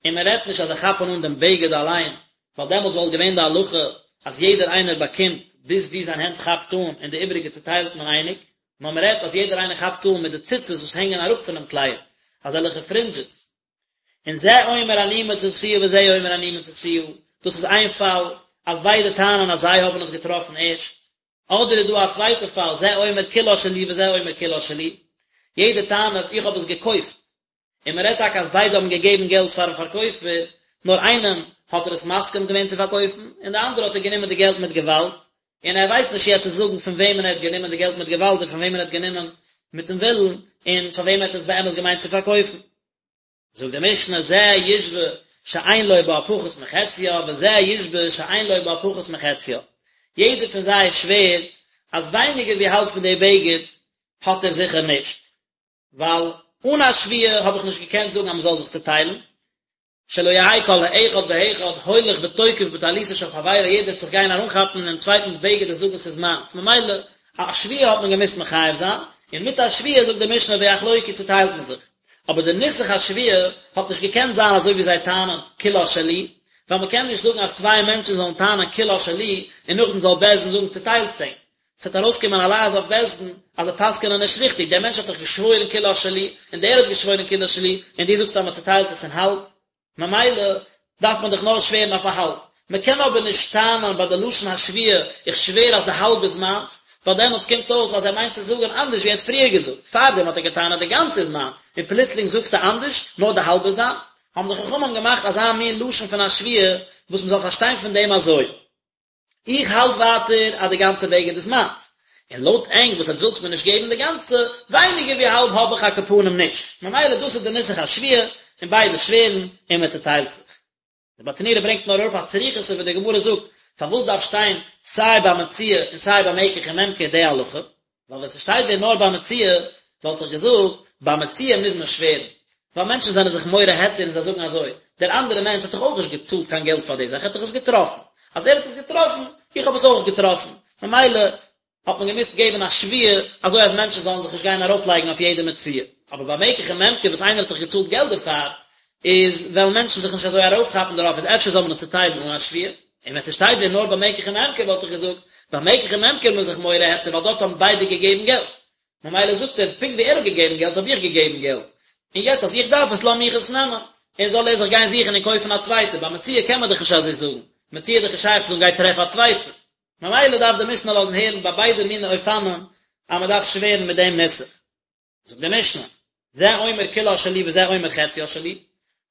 און מען רעדט נישט אז זיי כאפן אן דעם בגד אליין, ווייל דעמאלטס וואלט געווען די הלכה אז יעדער איינער באקומט ביז וואו זיין הענט כאפט אן און די איבעריגע צוטיילט מען אייניג, נאר מען רעדט אז יעדער איינער כאפט אן מיט די ציצית וואס הענגען אראפ פונעם קלייד, אזעלכע פרינדזשעס. און זה אומר אני מצאתיה וזה אומר אני מצאתיה, דאס איז איין פאל אז ביידע טענה'ן אז זיי האבן עס געטראפן ערשט, אדער איז דא א צווייטע פאל זה אומר כולה שלי וזה אומר כולה שלי, יעדער טענה'ט איך האב עס געקויפט, און מען רעדט טאקע אז ביידע האבן געגעבן געלט פארן פארקויפער, נאר איינעם האט ער עס מסכים געווען צו פארקויפן, און די אנדערע האט ער גענומען די געלט מיט געוואלד, און ער ווייסט נישט יעצט צו זאגן פון וועמען ער האט גענומען די געלט מיט געוואלד און פון וועמען ער האט גענומען מיטן ווילן, און פאר וועם ער האט עס באמת געמיינט צו פארקויפן. זאגט די משנה, זה ישבע שאין לו בה פחות מחציה, וזה ישבע שאין לו בה פחות מחציה. יעדער פון זיי שווערט אז ווייניגער ווי האלב פון די בגד האט ער זיכער נישט. ווייל אן א שבועה האב איך נישט געקענט זאגן אז מען זאל זיך צוטיילן, שלא יהא כל האחד והאחד הולך ותוקף בטליתו של חברו, יעדער וועט זיך גיין ארומכאפן אינעם צווייטנס בגד און זאגן ס'איז מיינס, ממילא א שבועה האט מען געמוזט מחייב זיין, און מיט א שבועה זאגט די משנה ויחלוקו צוטיילט מען זיך, אבער די נוסח השבועה האט נישט געקענט זיין אזוי ווי זיי טענה'ן כולה שלי, ווייל מען קען נישט זאגן אז צוויי מענטשן זאלן טענה'ן כולה שלי און נאכדעם זאל בית דין זאגן צוטיילט ענק, ס'וועט ארויסקומען א לעז אויף בית דין אז זיי פסק'ענען נישט ריכטיג, דער מענטש האט דאך געשוואוירן כולה שלי, און דער האט געשוואוירן כולה שלי, און דו זאגסט אז מען צוטיילט עס אין האלב, ממילא דארף מען דאך נאר שווערן אויף א האלב. מען קען אבער נישט טענה'ן ביי די לשון השבועה, איך שווער אז די האלב איז מיינס, ווייל דעמאלטס קומט אויס אז ער מיינט צו זאגן אנדערש ווי ער האט פריער געזאגט, פארדעם האט ער געטענה'ט די גאנצע איז מיין, און פלוצלינג זאגסטו אנדערש, נאר די האלב איז דיין. האבן די חכמים געמאכט אזא מין לשון פון א שבועה וואס מען זאל פארשטיין פון דעם אזוי. איך האלט ווייטער אז די גאנצע בגד איז מיינס, און לויט ענק וואס עטס ווילטס מיר נישט געבן די גאנצע, ווייניגער ווי האלב האב איך על כל פנים נישט, ממילא דאס איז די נוסח השבועה, און ביידע שווערן, און מען צוטיילט זיך. די ברטנורא ברענגט נאר אראפ א צריכותא וואס די גמרא זאגט, פארוואס דארף שטיין סיי ביי מציאה און סיי ביי מקח וממכר די הלכה? ווייל ווען ס'שטייט ווען נאר ביי מציאה, וואלט איך געזאגט, ביי מציאה מוז מען שווערן. ווייל מענטשן זענען זיך מורה היתר און זיי זאגן אזוי, דער אנדערער מענטש האט דאך אויך נישט געצאלט קיין געלט פאר די זאך, ער האט דאך עס געטראפן. אז ער האט עס געטראפן, איך האב עס אויך געטראפן. ממילא האט מען געמוזט געבן א שבועה, אזוי אז מענטשן זאלן זיך נישט גיין ארויפלייגן אויף יעדע מציאה. אבער ביי מקח וממכר וואס איינער האט דאך געצאלט געלט דערפאר, איז וועלן מענטשן זיך נישט אזוי ארויפכאפן דערויף, איז אפשר זאל מען עס צוטיילן אן א שבועה. און ווען ס'שטייט ווען נאר ביי מקח וממכר וואלט איך געזאגט, ביי מקח וממכר איז מען זיך מורה היתר ווייל דארט האבן ביידע געגעבן געלט. ממילא זאגט ער, פונקט ווי ער האט געגעבן געלט האב איך געגעבן געלט, און יעצט אז איך דארף עס לאז מיך עס נעמען, און זאל ער זיך גיין זוכן און קויפן א צווייטע, ביי מציאה קען מען דאך נישט אזוי זאגן, מציאה איז דאך נישט שייך צו זאגן גיי טרעף א צווייטע. ממילא דארף די משנה לאזן הערן ביי ביידע מיני אופנים אז מען דארף שווערן מיט דעם נוסח. זאגט די משנה, זה אומר כולה שלי וזה אומר חציה שלי,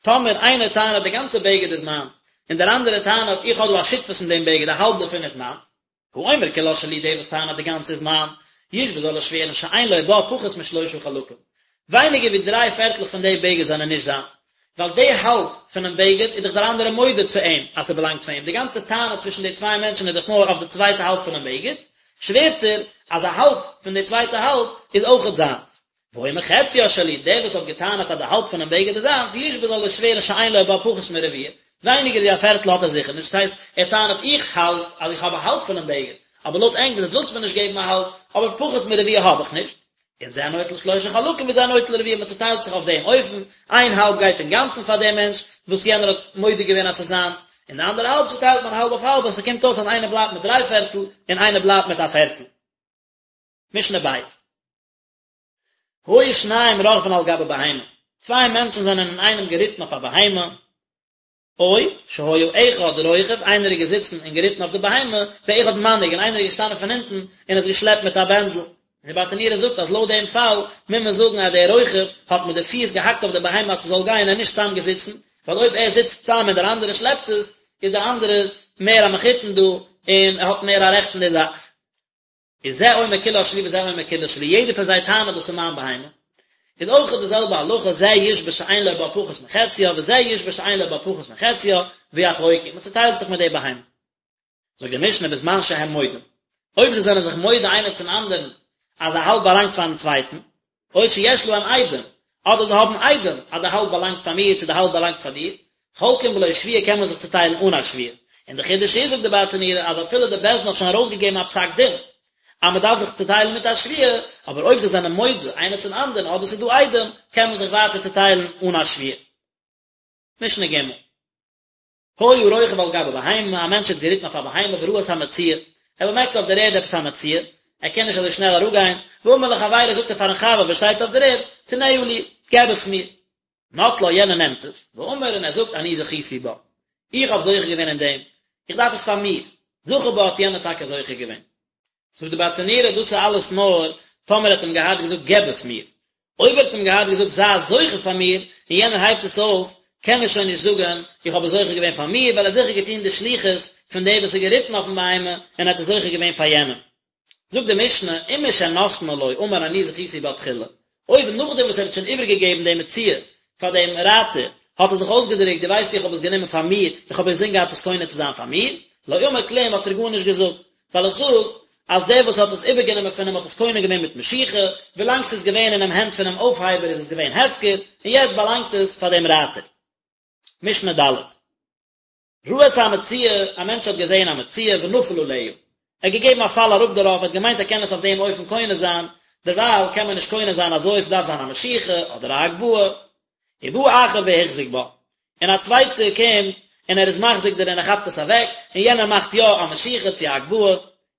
טאמער איינער טענה'ט די גאנצע בגד איז מיינס, און דער אנדערער טענה'ט איך האב דא א שותפות אין דעם בגד א האלב דערפון איז מיינס, האומר כולה שלי דער וואס טענה'ט די גאנצע איז מיין, ישבע זאל ער שווערן שאין לו בה פחות משלושה חלקים, ווייניגער ווי דריי פערטלעך פון די בגד זענען נישט זיינס, ווייל די האלב פונעם בגד איז דאך דער אנדערער מודה צו אים אז ס'באלאנגט פאר אים, די גאנצע טענה צווישן די צוויי מענטשן איז דאך נאר אויף די צווייטע האלב פונעם בגד, שווערט ער אז א האלב פון די צווייטע האלב איז אויכעט זיינס. והאומר חציה שלי, דער וואס האט געטענה'ט אז די האלב פונעם בגד איז זיינס, ישבע זאל ער שווערן שאין לו בה פחות מרביע, ווייניגער ווי א פערטל האט ער זיכער נישט, דאס הייסט, ער טענה'ט איך האלט אז איך האב א האלב פונעם בגד, אבער לויט ענק וואס עטס ווילטס מיר נישט געבן א האלב, אבער פחות מרביע האב איך נישט. און זה נוטל שלושה חלקים וזה נוטל רביע, מען צוטיילט זיך אויף דעם אופן, איין האלב גייט אינגאנצן פאר דעם מענטש וואס יענער האט מודה געווען אז ס'איז זיינס, און די אנדערע האלב צוטיילט מען האלב אויף האלב און ס'קומט אויס אז איינער בלייבט מיט דריי פערטל און איינער בלייבט מיט א פערטל. משנה בית. היו שניים רוכבין על גבי בהמה, צוויי מענטשן זענען אינאיינעם געריטן אויף א בהמה, או שהיה אחד רוכב, איינער איז געזיצן און געריטן אויף די בהמה, ואחד מנהיג, און איינער איז געשטאנען פון הינטן און עס געשלעפט מיט א בענדל. און די ברטנורא זאגט אז לויט דעם פאל מוז מען זאגן אז דער רוכב האט מיט די פיס געהאקט אויף די בהמה אז ס'זאל גיין און נישט סתם געזיצן, ווייל אויב ער זיצט סתם און דער אנדערער שלעפט עס, איז דער אנדערער מער א מחותן דא און ער האט מער א רעכט אין די זאך. איז זה אומר כולה שלי וזה אומר כולה שלי, יעדער פון זיי טענה'ט דאס איז מיין בהמה, איז אויך די זעלבע הלכה, זה ישבע שאין לו בה פחות מחציה וזה ישבע שאין לו בה פחות מחציה, ויחלוקו, מען צוטיילט זיך מיט די בהמה. זאגט די משנה בזמן שהם מודים, אויב זיי זענען זיך מודה איינער צום אנדערן אז א האלב באלאנגט פארן צווייטן, או שיש להם עדים, אדער זיי האבן עדים אז די האלב באלאנגט פאר מיר צו די האלב באלאנגט פאר דיר, חולקים בלא שבועה קען מען זיך צוטיילן אן א שבועה. און די חידוש איז זאגט די ברטנורא אז אפילו די בית דין האט שוין ארויסגעגעבן א פסק דין אז מען דארף זיך צוטיילן מיט א שבועה, אבער אויב זיי זענען מודה איינער צום אנדערן אדער ס'איז דא עדים קען מען זיך ווייטער צוטיילן אן א שבועה. משנה ג'. היה רוכב על גבי בהמה, א מענטש האט געריטן אויף א בהמה וראה את המציאה, ער באמערקט אויף דער ערד עפעס א מציאה, ער קען נישט אזוי שנעל אראפגיין, ואמר לחבירו זאגט ער פארן חבר וואס שטייט אויף דער ערד, תננה לי, געב עס מיר. נטלה, יענער נעמט עס, ואמר און ער זאגט אני זכיתי בה, איך האב זוכה געווען אין דעם, איך דארף עס פאר מיר, זכה בה האט יענער טאקע זוכה געווען. זאגט די ברטנורא דאס איז אלעס נאר טאמער ער האט אים געהאט געזאגט געב עס מיר, אויב ער האט אים געהאט געזאגט זיי זוכה פאר מיר, און יענער הייבט עס אויף, קען ער שוין נישט זאגן איך האב עס זוכה געווען פאר מיר, ווייל ער האט זיכער געטון די שליחות פון דער וואס איז געריטן אויפן בהמה, און ער האט עס זוכה געווען פאר יענעם. זאגט די משנה, ומשנתנה לו אמר אני זכיתי בה תחילה, אויב נאכדעם וואס ער האט שוין איבערגעגעבן די מציאה פאר דעם רייטער, האט ער זיך אויסגעדרוקט, דו ווייסט איך האב עס גענומען פאר מיר, איך האב אינזין געהאט עס קונה צו זיין פאר מיר, לא אמר כלום האט ער גארנישט געזאגט, ווייל איך זאג אז דער וואס האט עס איבערגענומען פון אים האט עס קונה געווען מיט משיכה, ווילאנג ס'איז געווען אינעם הענט פונעם אויפהייבער איז עס געווען הפקר, און יעצט באלאנגט עס פאר דעם רייטער. משנה ד'. ראה את המציאה, א מענטש האט געזען א מציאה ונפל עליה, ער האט געגעבן א פאל אראפ דערויף, ער האט געמיינט ער קען עס אויף דעם אופן קונה זיין, דערווייל קען מען נישט קונה זיין אזוי, ס'דארף זיין א משיכה אדער א הגבהה. ובא אחר והחזיק בה, און א צווייטער קומט און ער איז מחזיק דערין ער כאפט עס אוועק, און יענער מאכט יא א משיכה צו א הגבהה,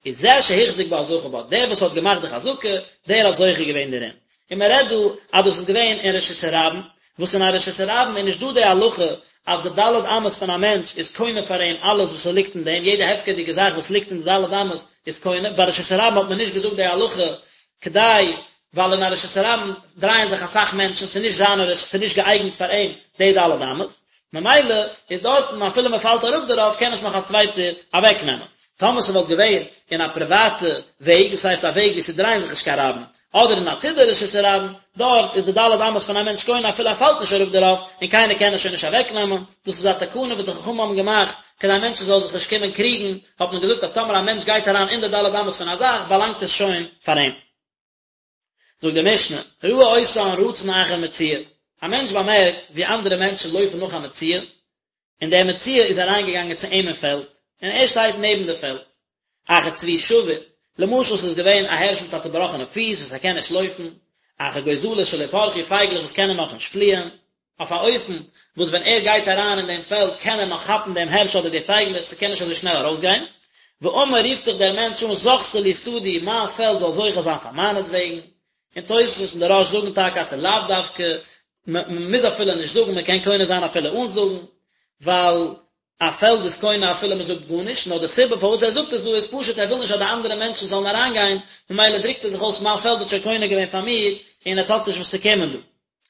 איז זה שהחזיק בה זכה בה, דער וואס האט געמאכט די חזקה, דער האט זוכה געווען דערין. און מען רעדט דא אז דאס איז געווען אין רשות הרבים, וואס אין א רשות הרבים איז נישט דא די הלכה אז די ד' אמות פון א מענטש איז קונה פאר אים אלעס וואס ס'ליגט אין דעם, יעדע הפקר'דיגע זאך וואס ליגט אין די ד' אמות איז קונה, ביי רשות הרבים האט מען נישט געזאגט די הלכה כדי, ווייל אין א רשות הרבים דרייען זיך אסאך מענטשן, ס'איז נישט זיין רשות, ס'איז נישט געאייגנט פאר אים די ד' אמות, ממילא איז דארטן אפילו מען פאלט אראפ דערויף קען עס נאך א צווייטער אוועקנעמען. טאמער ס'וואלט געווען אין א פריוואטע וועג, דאס הייסט א וועג וואו ס'דרייען זיך נישט קיין רבים, אדער אין א צידי רשות הרבים, דארט איז די ד' אמות פון א מענטש קונה אפילו ער פאלט נישט אראפ דערויף, און קיינער קען עס שוין נישט אוועקנעמען, דאס איז א תקנה וואס די חכמים האבן געמאכט, כדי מענטשן זאלן זיך נישט קומען קריגן, האט מען געזאגט אז טאמער א מענטש גייט אריין אין די ד' אמות פון א זאך, באלאנגט עס שוין פאר אים. זאגט די משנה, ראה אותן רצין אחר מציאה, א מענטש באמערקט ווי אנדערע מענטשן לויפן נאך א מציאה, און דער מציאה איז אריינגעגאנגען צו אים אין פעלד, און ער שטייט נעבן די פעלד. אחר צבי שבור, למשל ס'איז געווען א הערש מיט א צובראכענע פיס וואס ער קען נישט לויפן, אחר גוזלות שלא פרחו פייגלעך וואס קענען נאכנישט פליען, אויף א אופן וואס ווען ער גייט אריין אין דעם פעלד קען ער נאך כאפן דעם הערש אדער די פייגלעך, ס'קען נישט אזוי שנעל ארויסגיין. ואמר רופט זיך דער מענטש אן זכתה לי שדי, מיין פעלד זאל זוכה זיין פאר מיינעטוועגן. און תוספות און די רא"ש זאגן טאקע אז ס'איז לאו דווקא, מ'מוז אפילו נישט זאגן, מ'קען קונה זיין אפילו אן זאגן, ווייל א פעלד איז קונה אפילו מ'זאגט גארנישט, נאר די סיבה פארוואס ער זאגט עס דא איז פשוט ער וויל נישט אז די אנדערע מענטשן זאלן אריינגיין, ממילא דרוקט ער זיך אויס מיין פעלד האט שוין קונה געווען פאר מיר, און עטס האטס נישט וואס צו קומען דא.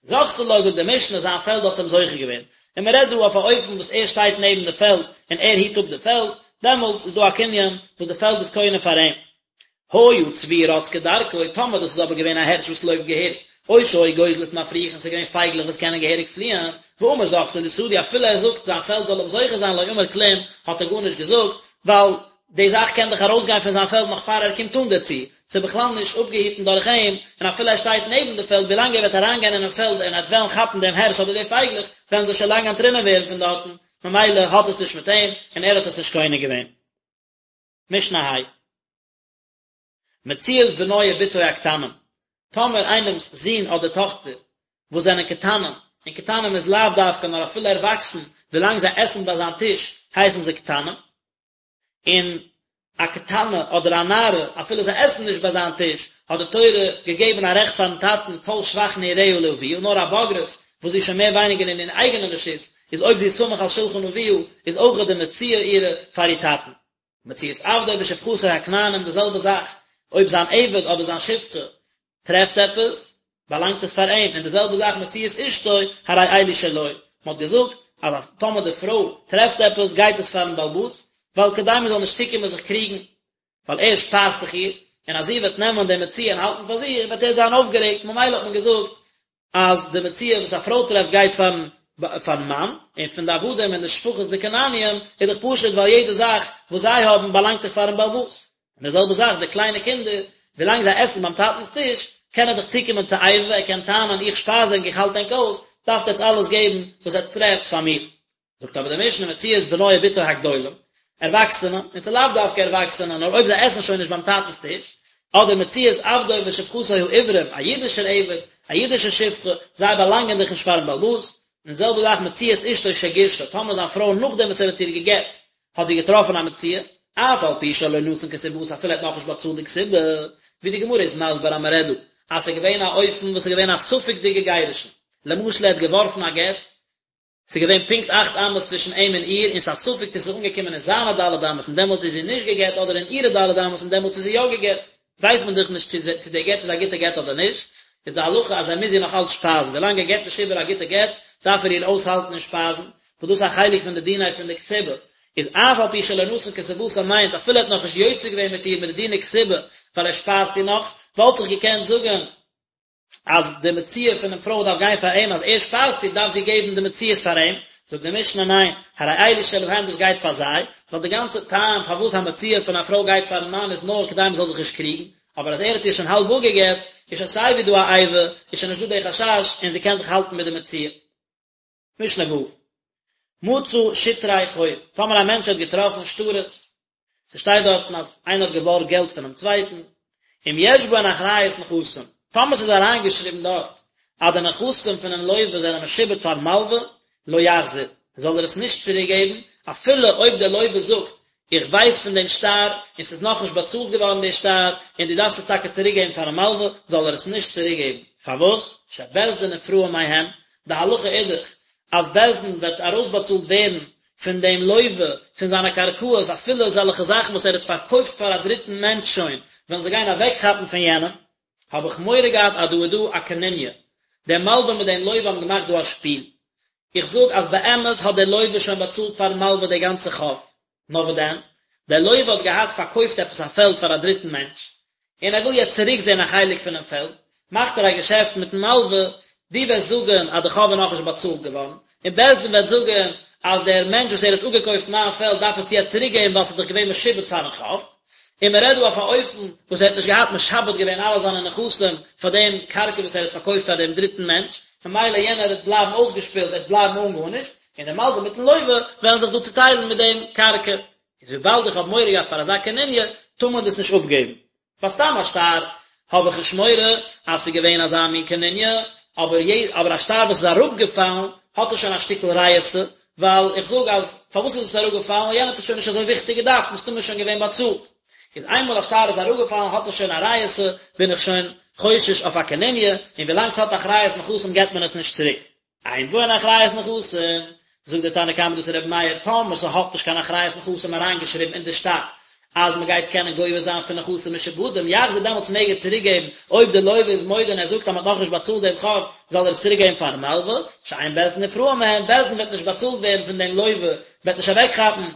זכתה לו זאגט די משנה זיין פעלד האט אים זוכה געווען, און מען רעדט דא אויף א אופן וואס ער שטייט נעבן די פעלד און ער היט אפ די פעלד, דעמאלטס איז דא א קנין וואס די פעלד איז קונה פאר אים. היה צבי רץ כדרכו, טאמער דאס איז אבער געווען א הערש וואס לויפט געהעריג, או שהיו גוזלות מפריחין, ס'איז געווען פייגלעך וואס קענען געהעריג פליען, ואמר זכתה לי שדי, אפילו ער זאגט זיין פעלד זאל אים זוכה זיין לא אמר כלום, האט ער גארנישט געזאגט, ווייל די זאך קען דאך ארויסגיין פון זיין פעלד נאך פאר ער קומט אן דערצו, ס'איז בכלל נישט אפגעהיטן דורך אים, און אפילו ער שטייט נעבן די פעלד, ווילאנג ער וועט אריינגיין אינעם פעלד און ער וועט וועלן כאפן דעם הערש אדער די פייגלעך, וועלן זיי שוין לאנג אנטרינען ווערן פון דארטן, ממילא האט עס נישט מיט אים, און ער האט עס נישט קונה געווען. משנה ה'. מציאת בנו ובתו הקטנים, טאמער איינעמס זון אדער טאכטער וואס זענען קטנים, און קטנים איז לאו דווקא נאר אפילו ערוואקסן, ווילאנג זיי עסן ביי זיין טיש הייסן זיי קטנים, און א קטנה אדער א נערה אפילו זיי עסן נישט ביי זיין טיש, האט די תורה געגעבן א רעכט פארן טאטן כל שבח נעוריה לאביה, נאר א בוגרת וואס זי איז שוין מער ווייניגער אין איר אייגענע רשות, איז אויב זי איז סמוך על שלחן אביה, איז אויכעט די מציאה אירע פאר איר טאטן. מציאת עבדו ושפחתו הכנענים די זעלבע זאך, אויב זיין עבד אדער זיין שפחה טרעפט עפעס, באלאנגט עס פאר אים, און די זעלבע זאך מציאת אשתו, הרי אלו שלו, מען האט געזאגט אז טאמער די פרוי טרעפט עפעס גייט עס פארן בעל הבית, ווייל כדי מען זאל נישט צוקומען זיך קריגן, ווייל ער שפייזט דאך איר, און אז זי וועט נעמען די מציאה און האלטן פאר זיך וועט ער זיין אויפגערעגט, ממילא האט מען געזאגט אז די מציאה וואס א פרוי טרעפט גייט פארן פארן מאן, און פון די עבדים און די שפחות די כנעניים איז דאך פשוט ווייל יעדע זאך וואס זיי האבן באלאנגט דאך פארן בעל הבית. און די זעלבע זאך די קליינע קינדער, ווילאנג זיי עסן ביים טאטנ'ס טיש, קען ער דאך צוקומען צו איבה, ער קען טענה'ן איך שפייז ענק איך האלט ענק אויס, דארפט עטס אלעס געבן וואס עטס טרעפטס פאר מיר. זאגט אבער די משנה מציאת בנו ובתו הגדולים, ערוואקסענע, און ס'איז לאו דווקא ערוואקסענע, נאר אויב זיי עסן שוין נישט ביים טאטנ'ס טיש, אדער מציאת עבדו ושפחתו העברים, א אידישער עבד, א אידישע שפחה, זיי באלאנגען דאך נישט פארן בעל הבית, און די זעלבע זאך מציאת אשתו שגירשה, טאמער זיין פרוי נאכדעם וואס ער האט איר גע'גט, האט זי געטראפן א מציאה, אף על פי שלא נתן כתובתה אפילו ער האט נאכנישט באצאלט די כתובה, ווי די גמרא איז מסביר אז מ'רעדט דא אז ס'איז געווען א אופן וואס איז געווען א ספק'דיגע גירושין, למשל ער האט געווארפן א גט, ס'איז געווען פונקט אכט אמות צווישן אים און איר, און ס'איז א ספק צו ס'איז אנגעקומען אין זיינע ד' אמות און דעמאלטס איז זי נישט גע'גט אדער אין אירע ד' אמות און דעמאלטס איז זי יא גע'גט. ווייסט מען דאך נישט צו די גט איז א גוטע גט אדער נישט, איז די הלכה אז ער מוז איר נאך אלץ שפייזן, ווילאנג ער געבט נישט איבער א גוטע גט דארף ער איר אויסהאלטן און שפייזן, וואס דאס איז א חלק פון די דיני פון די כתובה, איז אף על פי שלא נתן כתובתה מיינט אפילו ער האט נאכנישט יוצא געווען מיט איר מיט די דיני כתובה ווייל ער שפייזט איר נאך, וואלט איך געקענט זאגן אז די מציאה פונעם פרוי דארף גיין פאר אים, אז ער שפייזט איר דארף זי געבן די מציאות פאר אים, זאגט די משנה ניין, הרי אלו שלהם דאס גייט פאר זיי, ווייל די גאנצע טעם פארוואס א מציאה פון א פרוי גייט פארן מאן איז נאר כדי מען זאל זיך נישט קריגן, אבער אז ער האט איר שוין האלב אפגעגט, איז שוין סיי ווי דא א איבה, איז שוין נישט דא די חשש, און זי קען זיך האלטן מיט די מציאה. משנה ו'. מצא שטרי חוב, טאמער א מענטש האט געטראפן שטרות, ס'שטייט דארטן אז איינער האט געבארגט געלט פונעם צווייטן, אם יש בהן אחריות נכסים, טאמער ס'איז אריינגעשריבן דארט אז די נכסים פונעם לווה זענען משועבד פארן מלווה, לא יחזיר, זאל ער עס נישט צוריקגעבן, אפילו אויב דער לווה זאגט, איך ווייס פון דעם שטר, און ס'איז נאכנישט באצאלט געווארן דער שטר, און דו דארפסט עס טאקע צוריקגעבן פארן מלווה, זאל ער עס נישט צוריקגעבן. פארוואס? שבית דין נפרעין מהם, די הלכה איז דאך אז בית דין וועט ארויסבאצאלט ווערן פון דעם לוה פון זיינע קרקעות אפילו אזעלכע זאכן וואס ער האט פארקויפט פאר א דריטן מענטש שוין וועלן זיי גיין אוועקכאפן פון יענעם, האב איך מורא געהאט אז דא איז דא א קנוניא, דער מלווה מיט דעם לוה האבן געמאכט דא א שפיל, איך זאג אז באמת האט דער לוה שוין באצאלט פארן מלווה די גאנצע חוב, נאר וואס דען, דער לוה האט געהאט פארקויפט עפעס א פעלד פאר א דריטן מענטש, און ער וויל יעצט צוריק זען א חלק פונעם פעלד, מאכט ער א געשעפט מיטן מלווה, דו וועסט זאגן אז די חוב איז נאכנישט באצאלט געווארן, און בית דין וועט זאגן אז דער מענטש וואס ער האט אפגעקויפט מיין פעלד דארף עס יעצט צוריק געבן ווייל ס'איז דאך געווען משועבד פארן חוב, און מען רעדט דא אויף א אופן וואס ער האט נישט געהאט משעבד געווען אלע זיינע נכסים פאר דעם קרקע וואס ער האט פארקויפט פאר דעם דריטן מענטש, ממילא יענער וועט בלייבן אויסגעשפילט, ער וועט בלייבן אן גארנישט, און דער מלווה מיטן לוה וועלן זיך דא צוטיילן מיט דעם קרקע. איז וויבאלד איך האב מורא געהאט פאר אזא קנוניא, טאר מען דאס נישט אפגעבן. ביי סתם א שטר האב איך נישט מורא אז ס'איז געווען אזא מין קנוניא, אבער אבער א שטר וואס איז אראפגעפאלן האט עס שוין א שטיקל ריעותא, ווייל איך זאג אז פארוואס איז עס אראפגעפאלן, ווייל יענער האט עס שוין נישט אזוי וויכטיג געדארפט, מסתמא איז שוין געווען באצאלט. איז איינמאל א שטר איז אראפגעפאלן האט עס שוין א ריעותא, בין איך שוין חושש אויף א קנוניא, און ווילאנג ס'האט אחריות נכסים געבט מען עס נישט צוריק. אין בהן אחריות נכסים, זאגט דער תנא קמא דאס איז רבי מאיר, טאמער ס'האט נישט קיין אחריות נכסים אריינגעשריבן אין די שטר אז מ'גייט קענען גובה זיין פון נכסים משועבדים, יחזיר דעמאלטס מעג ער צוריק געבן, אויב דער לוה איז מודה און ער זאגט אז מ'האט נאכנישט באצאלט דעם חוב, זאל ער עס צוריק געבן פארן מלווה, שאין בית דין נפרעין מהן, בית דין וועט נישט באצאלט ווערן פון דעם לוה, וועט נישט אוועקכאפן.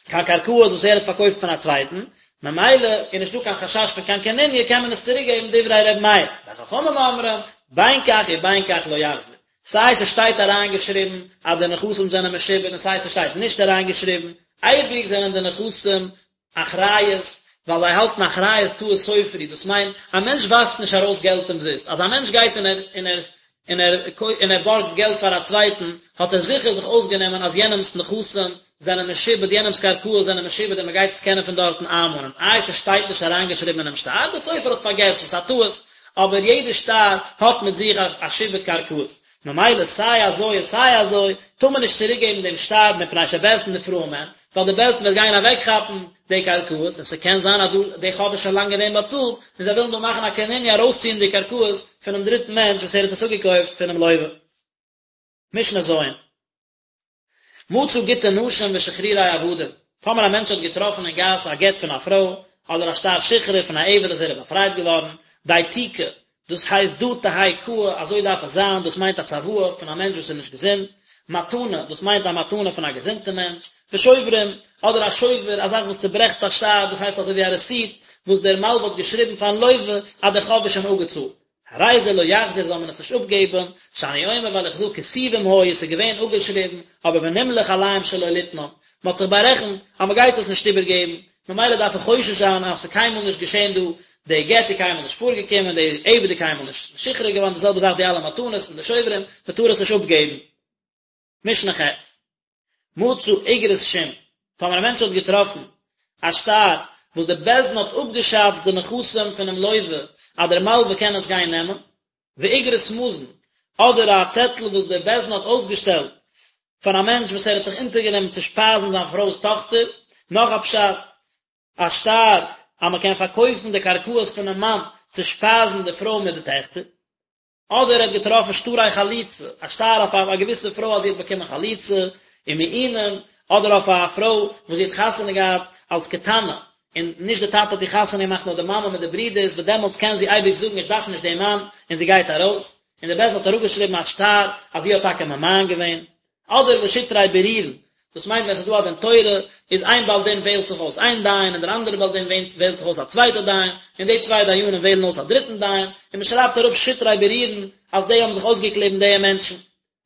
קיין קרקעות וואס ער האט פארקויפט פון א צווייטן, ממילא איז נישטא קיין חשש פון קיין קנוניא קען מען עס צוריק געבן דברי ר' מאיר, וחכמים אומרים, בין כך ובין כך לא יחזיר, סיי ס'שטייט אריינגעשריבן אז די נכסים זענען משועבד און סיי ס'שטייט נישט אריינגעשריבן, אייביג זענען די נכסים אחריות, ווייל זיי האלטן אחריות טעות סופר היא, דאס מיינט, א מענטש ווארפט נישט ארויס געלט אומזיסט, אז א מענטש גייט און ער און ער און ער און ער בארגט געלט פאר א צווייטן, האט ער זיכער זיך אויסגענומען אז יענעמ'ס נכסים זענען משועבד, יענעמ'ס קרקעות זענען משועבד און מ'גייט עס קענען פון דארטן איינמאנען. איי ס'שטייט נישט אריינגעשריבן אינעם שטר? דער סופר האט פארגעסן, ס'איז א טעות, אבער יעדער שטר האט מיט זיך א שעבוד קרקעות, ממילא סיי אזוי און סיי אזוי טאר מען נישט צוריקגעבן דעם שטר מפני שבית דין נפרעין מהן, ווייל די בית דין וועט גיין אוועקכאפן די קרקעות, און ס'קען זיין אז דא די חוב איז שוין לאנג געווען באצאלט, און זיי ווילן דא מאכן א קנוניא ארויסציען די קרקעות פונעם דריטן מענטש וואס ער האט עס אפגעקויפט פונעם לוה. משנה ז'. מצא גיטי נשים ושחרורי עבדים, טאמער א מענטש האט געטראפן אין גאס א גט פון א פרוי, אדער א שטר שחרור פון א עבד אז ער איז באפרייט געווארן, דייתיקי, דאס הייסט דא תהא קאי, אזוי דארף עס זיין, דאס מיינט א צוואה פון א מענטש וואס איז נישט געזונט, מתנה, דאס מיינט א מתנה פון א געזונטע מענטש, ושוברים, אדער א שובר, א זאך וואס צוברעכט א שטר, דאס הייסט אזוי ווי א רעסיט, וואס דער מלווה האט געשריבן פארן לווה אז דער חוב איז שוין אפגעצאלט. הרי זה לא יחזיר זאל מען עס נישט אפגעבן, שאני אומר ווייל איך זאג כתובים היו עס איז געווען אפגעשריבן, אבער ונמלך עליהם שלא ליתנם, מען האט זיך בארעכנט אז מען גייט עס נישט איבערגעבן, ממילא דארף איך חושש זיין אז עס איז קיינמאל נישט געשען דא, די גט איז קיינמאל נישט פארגעקומען, די עבד איז קיינמאל נישט משוחרר געווארן, די זעלבע זאך די אלע מתנות און די שוברים, מען טאר עס נישט אפגעבן. משנה ח'. מצא אגרת שום, טאמער א מענטש האט געטראפן א שטר וואס די בית דין האט אפגעשאצט די נכסים פונעם לווה אז דער מלווה קען עס גיין נעמען, ואגרת מזון, אדער א צעטל וואס דער בית דין האט אויסגעשטעלט פאר א מענטש וואס ער האט זיך אונטערגענומען צו שפייזן זיין פרוי'ס טאכטער, נאך א פשט, א שטר אז מען קען פארקויפן די קרקעות פונעם מאן צו שפייזן די פרוי מיט די טעכטער. אדער ער האט געטראפן שטרי חליצה, א שטר אויף א געוויסע פרוי אז זי האט באקומען חליצה, ומעונים, אדער אויף א פרוי וואס זי האט חתונה געהאט אלס קטנה, און נישט די טאטע האט איר חתונה געמאכט נאר די מאמע מיט די ברידערס, וואס דעמאלטס קען זי אייביג זאגן איך דארף נישט דעם מאן, און זי גייט ארויס, און די בית דין האט אראפגעשריבן א שטר אז זי האט טאקע ממאן געווען. אדער ושטרי בירורין, דאס מיינט ווען עס איז דא א דין תורה, איז איין בעל דין וועהלט זיך אויס איין דיין, און דער אנדערער בעל דין וועהלט זיך אויס א צווייטע דיין, און די צוויי דיינים וועהלן אויס א דריטן דיין, און מען שרייבט אראפ שטרי בירורין אז די האבן זיך אויסגעקליבן די מענטשן.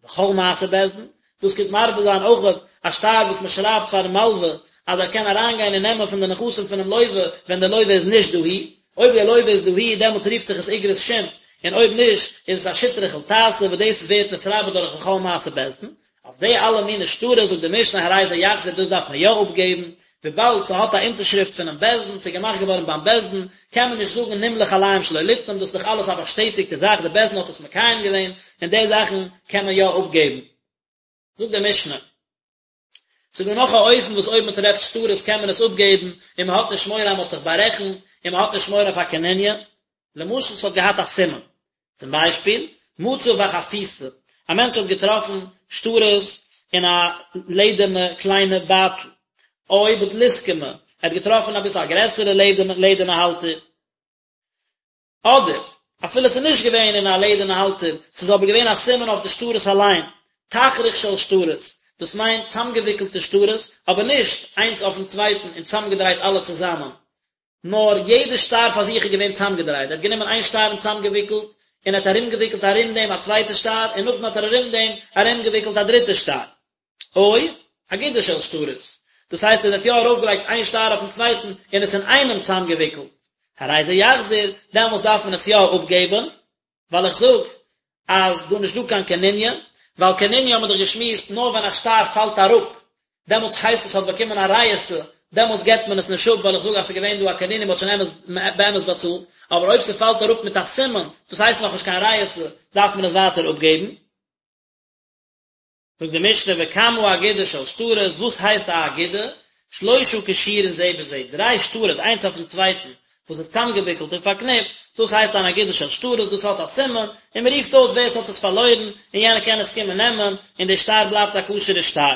וכל מעשה בית דין, דאס קומט מרבה זיין אויך א שטר וואס מען שרייבט פארן מלווה אז ער קען אריינגיין און נעמען פון די נכסים פונעם לווה ווען דער לווה איז נישט דאהי, אויב דער לווה איז דאהי דעמאלטס רופט זיך עס איגרת שום, און אויב נישט איז עס א שטרי חולתתא וואס דאס ווערט נתרבה דורך וכל מעשה בית דין. אויף די אלע מיני שטרות זאגט די משנה הרי זה יחזיר דאס דארף מען יא אפגעבן, וויבאלד ס'האט א אונטערשריפט פונעם בית דין, ס'איז געמאכט געווארן ביים בית דין, קען מען נישט זאגן נמלך עליהם שלא ליתנם, דאס איז דאך אלעס א באשטעטיגטע זאך, די בית דין האט עס מקיים געווען, און די זאכן קען מען יא אפגעבן. זאגט די משנה. ס'איז דא נאך א אופן וואס אויב מ'טרעפט שטרות קען מען עס אפגעבן און מ'האט נישט מורא אז מ'האט זיך בארעכנט און מ'האט נישט מורא פאר קנוניא. למשל ס'האט געהאט א סימן. צום ביישפיל, מצא בחפיסה. א מענטש האט געטראפן שטרות אין א לעדערנע קליינע בייטל, או בדלוסקמא, ער האט געטראפן אביסל א גרעסערע לעדערנע האלטער, אדער אפילו ס'איז נישט געווען אין א לעדערנע האלטער, ס'איז אבער געווען א סימן אויף די שטרות אליין, תכריך של שטרות, דאס מיינט צאמגעוויקלטע שטרות, אבער נישט איינס אויפן צווייטן און צאמגעדרייט אלע צוזאמען, נאר יעדע שטר פאר זיך איז געווען צאמגעדרייט, ער האט גענומען איין שטר און צאמגעוויקלט, און ער האט ארומגעוויקלט ארום דעם א צווייטע שטר, און נאכדעם האט ער ארום דעם ארומגעוויקלט א דריטע שטר. או אגודה של שטרות, דאס הייסט ער האט יא ארויפגעלייגט איין שטר אויפן צווייטן און עס אינאיינעם צאמגעוויקלט, הרי זה יחזיר, דעמאלס דארף מען עס יא אפגעבן, ווייל איך זאג אז דא נישט דא קיין קנוניא, ווייל קנוניא האבן מיר דאך געשמועסט נאר ווען א שטר פאלט אראפ, דעמאלטס הייסט עס האט באקומען א ריעותא, דעמאלטס געבט מען עס נישט אפ ווייל איך זאג אז ס'איז געווען דא א קנוניא מ'האט שוין אמת באמת באצאלט, אבער אויב ס'פאלט אראפ מיט א סימן, דאס הייסט נאכנישט קיין ריעותא, דארף מען עס ווייטער אפגעבן. זאגט די משנה וכמה אגודה של שטרות, וואס הייסט א אגודה? שלושה קשורין זה בזה, דריי שטרות איינס אויפן צווייטן, וואס איז צאמגעוויקלט און פארקניפט, דאס הייסט אן אגודה של שטרות, דאס האט א סימן, און מען רופט אויס ווער עס האט עס פארלוירן, און יענער קען עס קומען נעמען, און דער שטר בלייבט א כשר'ע שטר.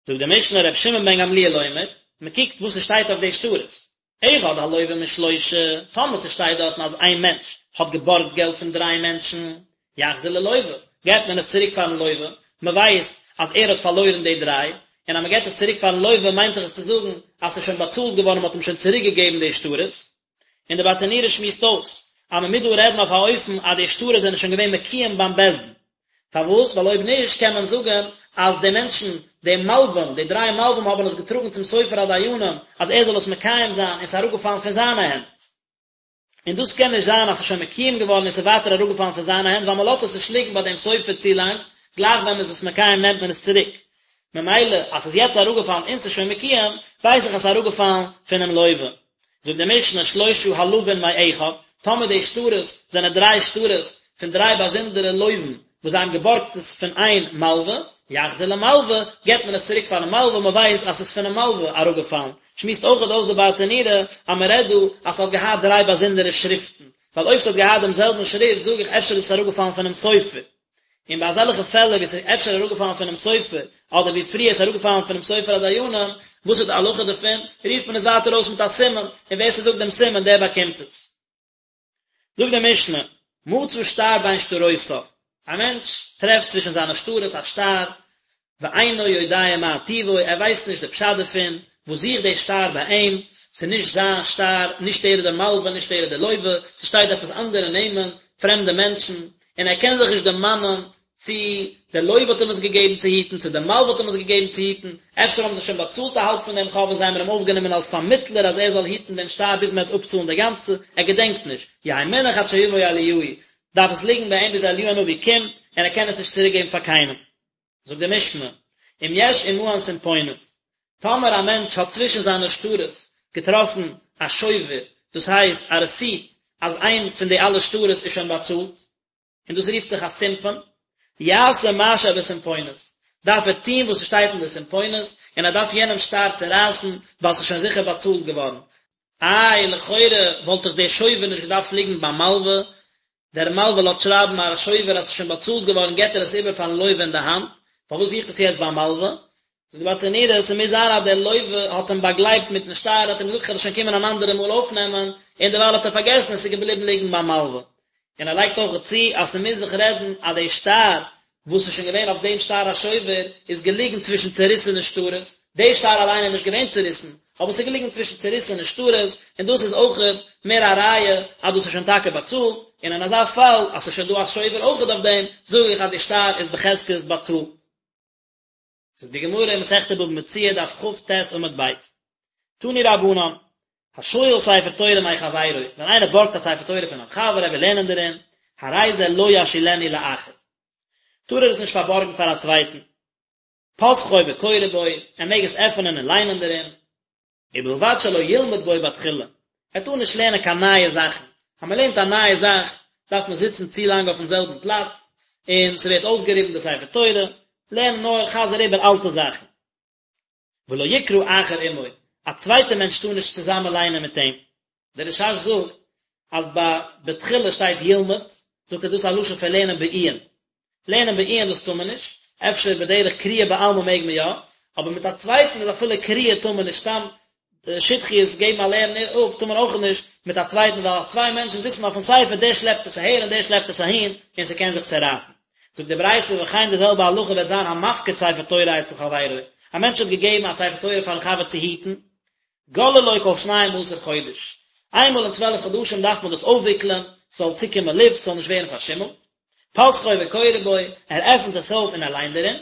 זאגט די משנה רבי שמעון בן גמליאל אומר, מען קוקט וואס עס שטייט אויף די שטרות, אחד הלוה משלושה, טאמער ס'שטייט דארטן אז איין מענטש האט געבארגט געלט פון דריי מענטשן, יחזיר ללוה, געבט מען עס צוריק פארן לוה, מען ווייסט אז ער האט פארלוירן די דריי, און אז מען געבט עס צוריק פארן לוה מיינט דאך עס צו זאגן אז ס'איז שוין באצאלט געווארן מען האט אים שוין צוריק געגעבן די שטרות. און די ברטנורא שמועסט אויס אז מען מוז דא רעדן אויף א אופן אז די שטרות זענען שוין געווען מקוים ביים בית דין, פארוואס? ווייל אויב נישט קען מען זאגן אז די מענטשן, די מלווים, די דריי מלווים האבן עס געטראגן צום סופר הדיינים אז ער זאל עס מקיים זיין און ס'איז אראפגעפאלן פון זיינע הענט. און דאס קען נישט זיין אז ס'איז שוין מקוים געווארן און ס'איז ווייטער אראפגעפאלן פון זיינע הענט ווייל מ'לאזט עס נישט ליגן ביי דעם סופר צו לאנג, גלייך ווען מ'איז עס מקיים נעמט מען עס צוריק. ממילא אז ס'איז יעצט אראפגעפאלן און ס'איז שוין מקוים, ווייס איך אז ס'איז אראפגעפאלן פונעם לווה. זאגט די משנה שלושה הלווין מאחד, טאמער די שטרות זענען דריי שטרות פון דריי באזונדערע לווים וואס זיי האבן געבארגט עס פון איין מלווה, יחזיר למלווה, געבט מען עס צוריק פארן מלווה, מען ווייסט אז ס'איז פונעם מלווה אראפגעפאלן. שמועסט אויכעט אויס די ברטנורא אז מען רעדט דא אז ס'האט געהאט דריי באזונדערע שריפטן, ווייל אויב ס'האט געהאט דעם זעלבן שריפט זאג איך אפשר איז עס אראפגעפאלן פונעם סופר. און ביי אזעלכע פעלער ווי ס'איז אפשר אראפגעפאלן פונעם סופר, אדער ווי פריער ס'איז אראפגעפאלן פונעם סופר הדיינים, וואס איז די הלכה דערפון? רופט מען עס ווייטער אויס מיט א סימן, און ווער ס'זאגט דעם סימן דער באקומט עס. זאגט די משנה, מצא שטר בין שטרותיו, א מענטש טרעפט צווישן זיינע שטרות א שטר, ואינו יודע מה טיבו, ער ווייסט נישט די פשט דערפון, וואס זוכט דער שטר ביי אים, ס'איז נישט זיין שטר, נישט ער איז דער מלווה, נישט ער איז דער לווה, ס'שטייט עפעס אנדערע נעמען, פרעמדע מענטשן, און ער קען זיך נישט דערמאנען צי דער לווה האט אים עס געגעבן צו היטן, צו דער מלווה האט אים עס געגעבן צו היטן, אפשר האבן זיי שוין באצאלט א האלב פון דעם חוב און זיי האבן אים אויפגענומען אלס פארמיטלער אז ער זאל היטן דעם שטר ביז מען וועט אפצאלן די גאנצע, ער געדענקט נישט, יהא מונח עד שיבוא אליהו, דארף עס ליגן ביי אים ביז אליהו הנביא קומט, און ער קען עס נישט צוריקגעבן פאר קיינעם. זאגט די משנה, אם יש עמהן סמפונת, טאמער א מענטש האט צווישן זיינע שטרות געטראפן א שובר, דאס הייסט א רעסיט אז איין פון די אלע שטרות איז שוין באצאלט, און דאס רופט זיך א סימפון, יעשה מה שבסמפונת, דארף ער טון וואס ס'שטייט אין די סימפונת, און ער דארף יענעם שטר צערייסן, ווייל ס'איז שוין זיכער באצאלט געווארן. איי, לכאורה וואלט דאך דער שובר נישט געדארפט ליגן ביים מלווה, דער מלווה לאזט שרייבן א שובר אז ס'איז שוין באצאלט געווארן געט ער עס איבער פארן לווה אין די האנט, פארוואס זוכט עס יעצט ביים מלווה? זאגט די ברטנורא, ס'מוז זיין אז דער לווה האט אים באגלייבט מיטן שטר, האט אים געזאגט כ'וועל עס שוין קומען אן אנדערע מאל אויפנעמען, און דערווייל האט ער פארגעסן און ס'איז געבליבן ליגן ביים מלווה. און ער לייגט אויך צו אז ס'מוז זיך רעדן אז די שטר וואס איז שוין געווען אויף דעם שטר השובר איז געליגן צווישן צעריסענע שטרות, די שטר אליין איז נישט געווען צעריסן, אבער ס'איז געליגן צווישן צעריסענע שטרות, און דאס איז אויכעט מער א ראיה אז דאס איז שוין טאקע באצאלט, און אין אזא פאל אז ס'איז שוין דא א שובר אויכעט אויף דעם, זאג איך אז די שטר איז בחזקת באצאלט. זאגט די גמרא אין מסכת בבא מציעא דף כ"ט עמוד ב', תנו רבנן, השואל ספר תורה מחבירו, ווען איינער בארגט א ספר תורה פון א חבר ער וויל לערנען דערין, הרי זה לא ישאילנו לאחר, טאר ער עס נישט פארבארגן פאר א צווייטן, פותחו וקורא בו, ער מעג עס עפענען און ליינען דערין, ובלבד שלא ילמד בו בתחילה, ער טאר נישט לערנען קיין נייע זאכן, אז מען לערנט א נייע זאך דארף מען זיצן צו לאנג אויפן זעלבן פלאץ, און ס'ווערט אויסגעריבן די ספר תורה, לערן נאר חזר איבער אלטע זאכן. ולא יקרא אחר עמו, א צווייטער מענטש טאר נישט צוזאמען ליינען מיט אים. דער רש"ש זאגט אז ביי בתחילה שטייט ילמד, זאגט ער דאס איז א לשון פון לערנען בעיון. לערנען בעיון דאס טאר מען נישט, אפשר בדרך קריאה בעלמא מעג מען יא, אבער מיט א צווייטן איז אפילו קריאה טאר מען נישט, סתם שטחיות געבן א לערן אפ טאר מען אויך נישט מיט א צווייטן ווייל אז צוויי מענטשן זיצן אויפן ספר דער שלעפט עס אהער און דער שלעפט עס אהין און ס'קען זיך צערייסן. זאגט די ברייתא וכן די זעלבע הלכה וועט זיין המפקיד ספר תורה אצל חברו, א מענטש האט געגעבן א ספר תורה פארן חבר צו היטן, גוללו כל שנים עשר חודש, איינמאל אין צוועלף חדשים דארף מען דאס אויפוויקלען, ס'זאל צוקומען לופט, ס'זאל נישט ווערן פארשימלט, פותחו וקורא בו, ער עפנט עס אויף און ער ליינט דערין,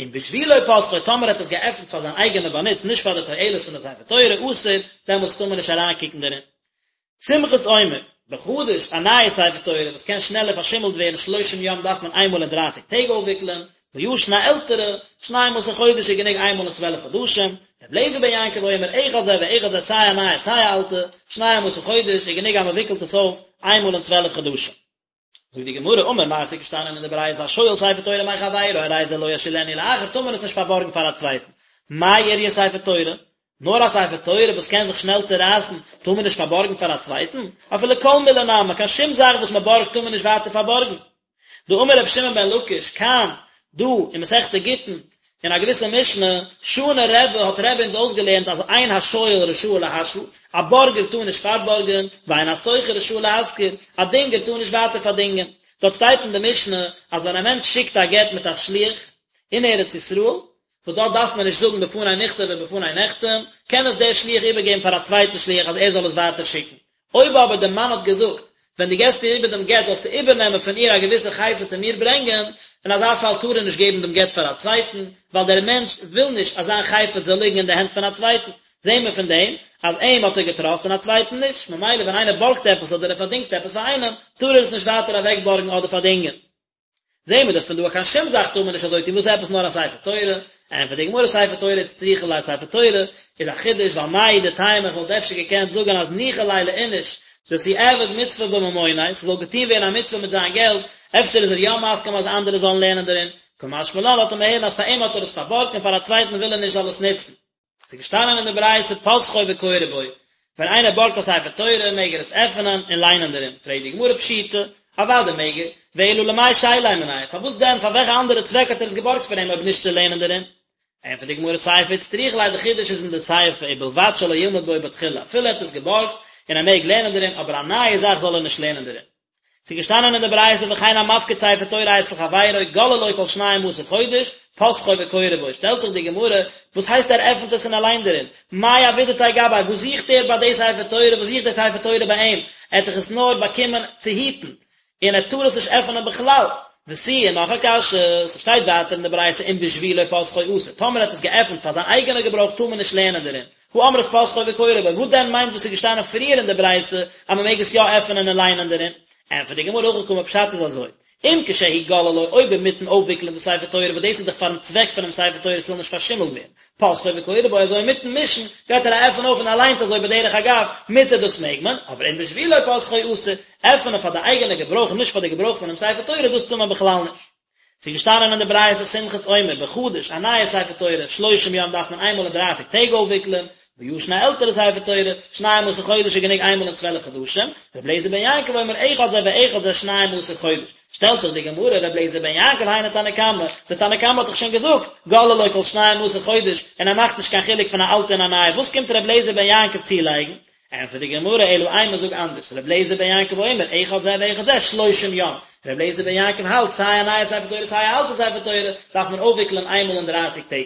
אם בשבילו פתחו, טאמער ער האט עס געעפנט פאר זיין אייגענע באנוץ, נישט פאר די תועלת פון די ספר תורה, אסור, דעמאלטס טאר מען נישט אריינקוקן דערין. סומכוס אומר, בחדש, א נייע ספר תורה וואס קען שנעלער פארשימלט ווערן שלושים יום דארף מען איינמאל אין דרייסיג טעג אויפוויקלען, בישן א עלטערע, שנים עשר חודש איז גענוג איינמאל אין צוועלף חדשים, ר' אליעזר בן יעקב אומר אחד זה ואחד זה סיי א נייע סיי א אלטע, שנים עשר חודש איז גענוג אז מען וויקלט עס אויף איינמאל אין צוועלף חדשים. זאגט די גמרא, אמר מר ס'איז געשטאנען אין די ברייתא השואל ספר תורה מחבירו הרי זה לא ישאילנו לאחר טאר מען עס נישט פארבארגן פאר א צווייטן, מאי איריא ספר תורה? נאר א ספר תורה וואס קען זיך שנעל צערייסן טאר מען נישט פארבארגן פאר א צווייטן? אפילו כל מילי נמי, קיין שום זאך וואס מען בארגט טאר מען נישט ווייטער פארבארגן. דאמר רבי שמעון בן לקיש, כאן, דא, אין מסכת גיטין, אין א געוויסע משנה, שנה רבי האט רבי אונז אויסגעלערנט אז אין השואל רשאי להשאיל, א בארגער טאר נישט פארבארגען, ואין השוכר רשאי להשכיר, א דינגער טאר נישט ווייטער פארדינגען. דארט שטייט אין די משנה אז ווען א מענטש שיקט א גט מיט א שליח אין ארץ ישראל, וואס דארט דארף מען נישט זאגן בפני נכתב ובפני נחתם, קען עס דער שליח איבערגעבן פאר א צווייטן שליח אז ער זאל עס ווייטער שיקן. אויב אבער דער מאן האט געזאגט, ווען דו געסט איר איבער דעם גט זאלסטו איבערנעמען פון איר א געוויסע חפץ און מיר ברענגען, אין אזא פאל טאר ער נישט געבן דעם גט פאר א צווייטן, ווייל דער מענטש וויל נישט אז זיין חפץ זאל ליגן אין די הענט פון א צווייטן. זעהן מיר פון דעם אז אים האט ער געטראסט און א צווייטן נישט, ממילא ווען איינער בארגט עפעס אדער ער פארדינגט עפעס פאר איינעם, טאר ער עס נישט ווייטער אוועקבארגן אדער פארדינגען. זעהן מיר דאך פון דא אז קיין שום זאך טאר מען נישט אזוי טון, וואס עפעס נאר א ספר תורה? ענטפערט די גמרא ספר תורה איצטריכא ליה ספר תורה איז א חידוש ווייל מהו דתימא איך וואלט אפשר געקענט זאגען אז ניחא ליה לאיניש דתיעביד מצוה בממוניה ס'זאל געטון ווערן א מצוה מיט זיין געלט אפשר איז ער יא מסכים אז אנדערע זאלן לערנען דערין קא משמע לן לאזט ער מיר הערן אז פאר אים האט ער עס פארבארגט און פאר א צווייטן וויל ער נישט זאל עס נוצן. ס'איז געשטאנען אין די ברייתא פותחו וקורא בו, ווען איינער בארגט א ספר תורה מעג ער עס עפענען און ליינען דערין, פרעגט די גמרא פשיטא, אוודאי מעג ער, ואלא למאי שייליה מיניה, פארוואס דען, פאר וועלכע אנדערע צוועק האט ער עס געבארגט פון אים אויב נישט צו לערנען דערין? ענטפערט די גמרא סיפא איצטריכא ליה די חידוש איז אין די סיפא ובלבד שלא ילמד בו בתחילה, אפילו ער האט עס געבארגט און ער מעג לערנען דערין, אבער א נייע זאך זאל ער נישט לערנען דערין. ס'איז געשטאנען אין די ברייתא וכן המפקיד ספר תורה אצל חברו גוללו כל שנים עשר חודש פותחו וקורא בו, שטעלט זיך די גמרא, וואס הייסט ער עפנט עס און ער ליינט דערין? מאי עבידתיה גביה, וואס זוכט ער ביי די ספר תורה, וואס זוכט די ספר תורה ביי אים? ער האט דאך עס נאר באקומען צו היטן, און ער טאר עס נישט עפענען בכלל. ותו, און נאך א קשיא, ס'שטייט ווייטער אין די ברייתא אם בשבילו פותחו אסור, טאמער ער האט עס געעפנט פאר זיין אייגענע געברויך טאר מען נישט לערנען דערין, הא אמרת פותחו וקורא בו, וואס דען מיינט וואס איז געשטאנען פריער אין די ברייתא אז מען מעג עס יא עפענען און ליינען דערין? ענטפערט די גמרא הכי קאמר פשט איז אזוי, אם כשהוא גוללו אויב אינמיטן אויפוויקלען די ספר תורה וואס דאס איז דאך פארן צוועק פונעם ספר תורה ס'זאל נישט פארשימלט ווערן, פותחו וקורא בו אזוי אינמיטן מישן גייט ער א עפען אויף און ער ליינט אזוי בדרך אגב, מותר דאס מעג מען, אבער אם בשבילו פותחו אסור, עפענען פאר די אייגענע געברויך און נישט פאר די געברויך פונעם ספר תורה דאס טאר מען בכלל נישט. ס'איז געשטאנען אין די ברייתא סומכוס אומר בחדש א נייע ספר תורה שלושים יום דארף מען איינמאל אין דרייסיג טעג אויפוויקלען, בישן א עלטערע ספר תורה שנים עשר חודש איז גענוג איינמאל אין צוועלף חדשים, ר' אליעזר בן יעקב אומר אחד זה ואחד זה שנים עשר חודש, שטעלט זיך די גמרא ר' אליעזר בן יעקב היינו תנא קמא, די תנא קמא האט דאך שוין געזאגט גוללו כל שנים עשר חודש און ער מאכט נישט קיין חילוק פון א אלטע און א נייע, וואס קומט ר' אליעזר בן יעקב צולייגן? ענטפערט די גמרא אלא אימא זאג אנדערש, ר' אליעזר בן יעקב אומר אחד זה ואחד זה שלושים יום, ר' אליעזר בן יעקב האלט סיי א נייע ספר תורה סיי א אלטע ספר תורה דארף מען אויפוויקלען איינמאל אין דרייסיג טעג.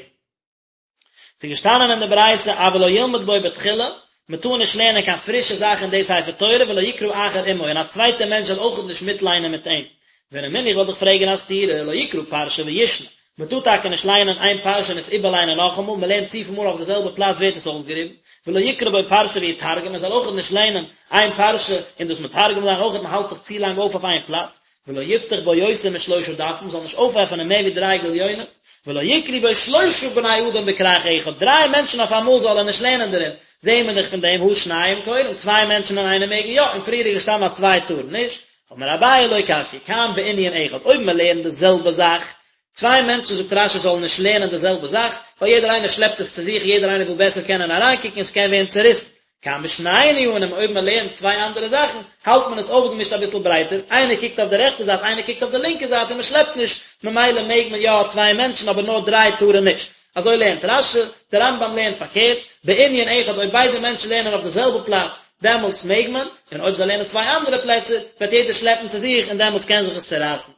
ס'איז געשטאנען אין די ברייתא אבל לא ילמד בו בתחילה, מען טאר נישט לערנען קיין פרישע זאך אין די ספר תורה ולא יקרא אחר עמו און א צווייטער מענטש זאל אויכעט נישט מיטליינען מיט אים, ורמינהו איך וועל דיך פרעגן א סתירה, לא יקרא פרשה וישנה, מען טאר טאקע נישט ליינען איין פרשה און עס איבערליינען נאכאמאל, מען לערנט צופיל מאל אויף די זעלבע פלאץ ווערט עס אויסגעריבן, ולא יקרא בו פרשה ויתרגם, מען זאל אויכעט נישט ליינען איין פרשה און דאס מתרגם זיין אויכעט, מען האלט זיך צו לאנג אויף אויף איין פלאץ, ולא יפתח בו יותר משלושה דפים, מען זאל נישט אויפעפענען מער ווי דריי גליונות, ולא יקראו בו שלושה בני אדם בכרך אחד, דריי מענטשן אויף אמאל זאל ער נישט לערנען דערין, זעהן מיר דאך פון דעם הא שניים קורין, צוויי מענטשן אין איינעם מעגן יא, און פריער איז געשטאנען אז צוויי טארן נישט, אמר אביי לא קשיא, כאן בענין אחד, אויב מען לערנט די זעלבע זאך, צוויי מענטשן זאגט רש"י זאלן נישט לערנען די זעלבע זאך, ווייל יעדער איינער שלעפט עס צו זיך, יעדער איינער וויל בעסער קענען אריינקוקן און ס'קען ווערן צעריסן. כאן בשני ענינים, אויב מען לערנט צוויי אנדערע זאכן, האלט מען עס אויפגעמישט אביסל ברייטער, איינער קוקט אויף די רעכטע זייט, איינער קוקט אויף די לינקע זייט און מען שלעפט נישט, ממילא מעג מען יא צוויי מענטשן אבער נאר דריי טארן נישט. אזוי לערנט רש"י, דער רמב"ם לערנט פארקערט, בענין אחד אויב ביידע מענטשן לערנען אויף די זעלבע פלאץ, דעמאלטס מעג מען, און אויב זיי לערנען צוויי אנדערע פלעצער, וועט יעדער שלעפן צו זיך און דעמאלטס קען זיך עס צערייסן.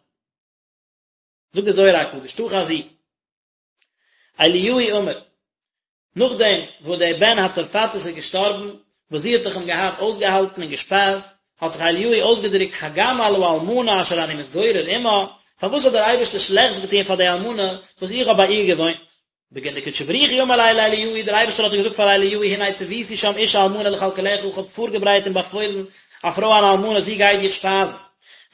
זאגט דער זוהר הקדוש, תא חזי. אליהו אמר, נאכדעם וואס דער בן הצרפתית איז געשטארבן, וואס זי האט דאך אים געהאט אויסגעהאלטן און געשפייזט, האט זיך אליהו אויסגעדרוקט הגם על האלמנה אשר אני מתגורר עמה, פארוואס האט דער אייבערשטער שלעכטס געטון פאר די אלמנה וואס איך האב ביי איר געוואוינט? בגין דקודשא בריך הוא אמר ליה לאליהו, דער אייבערשטער האט געזאגט פאר אליהו, הנה צויתי שם אשה אלמנה לכלכלך, איך האב פארגעברייט און באפוילן א פרוי אן אלמנה, זי גייט דיך שפייזן.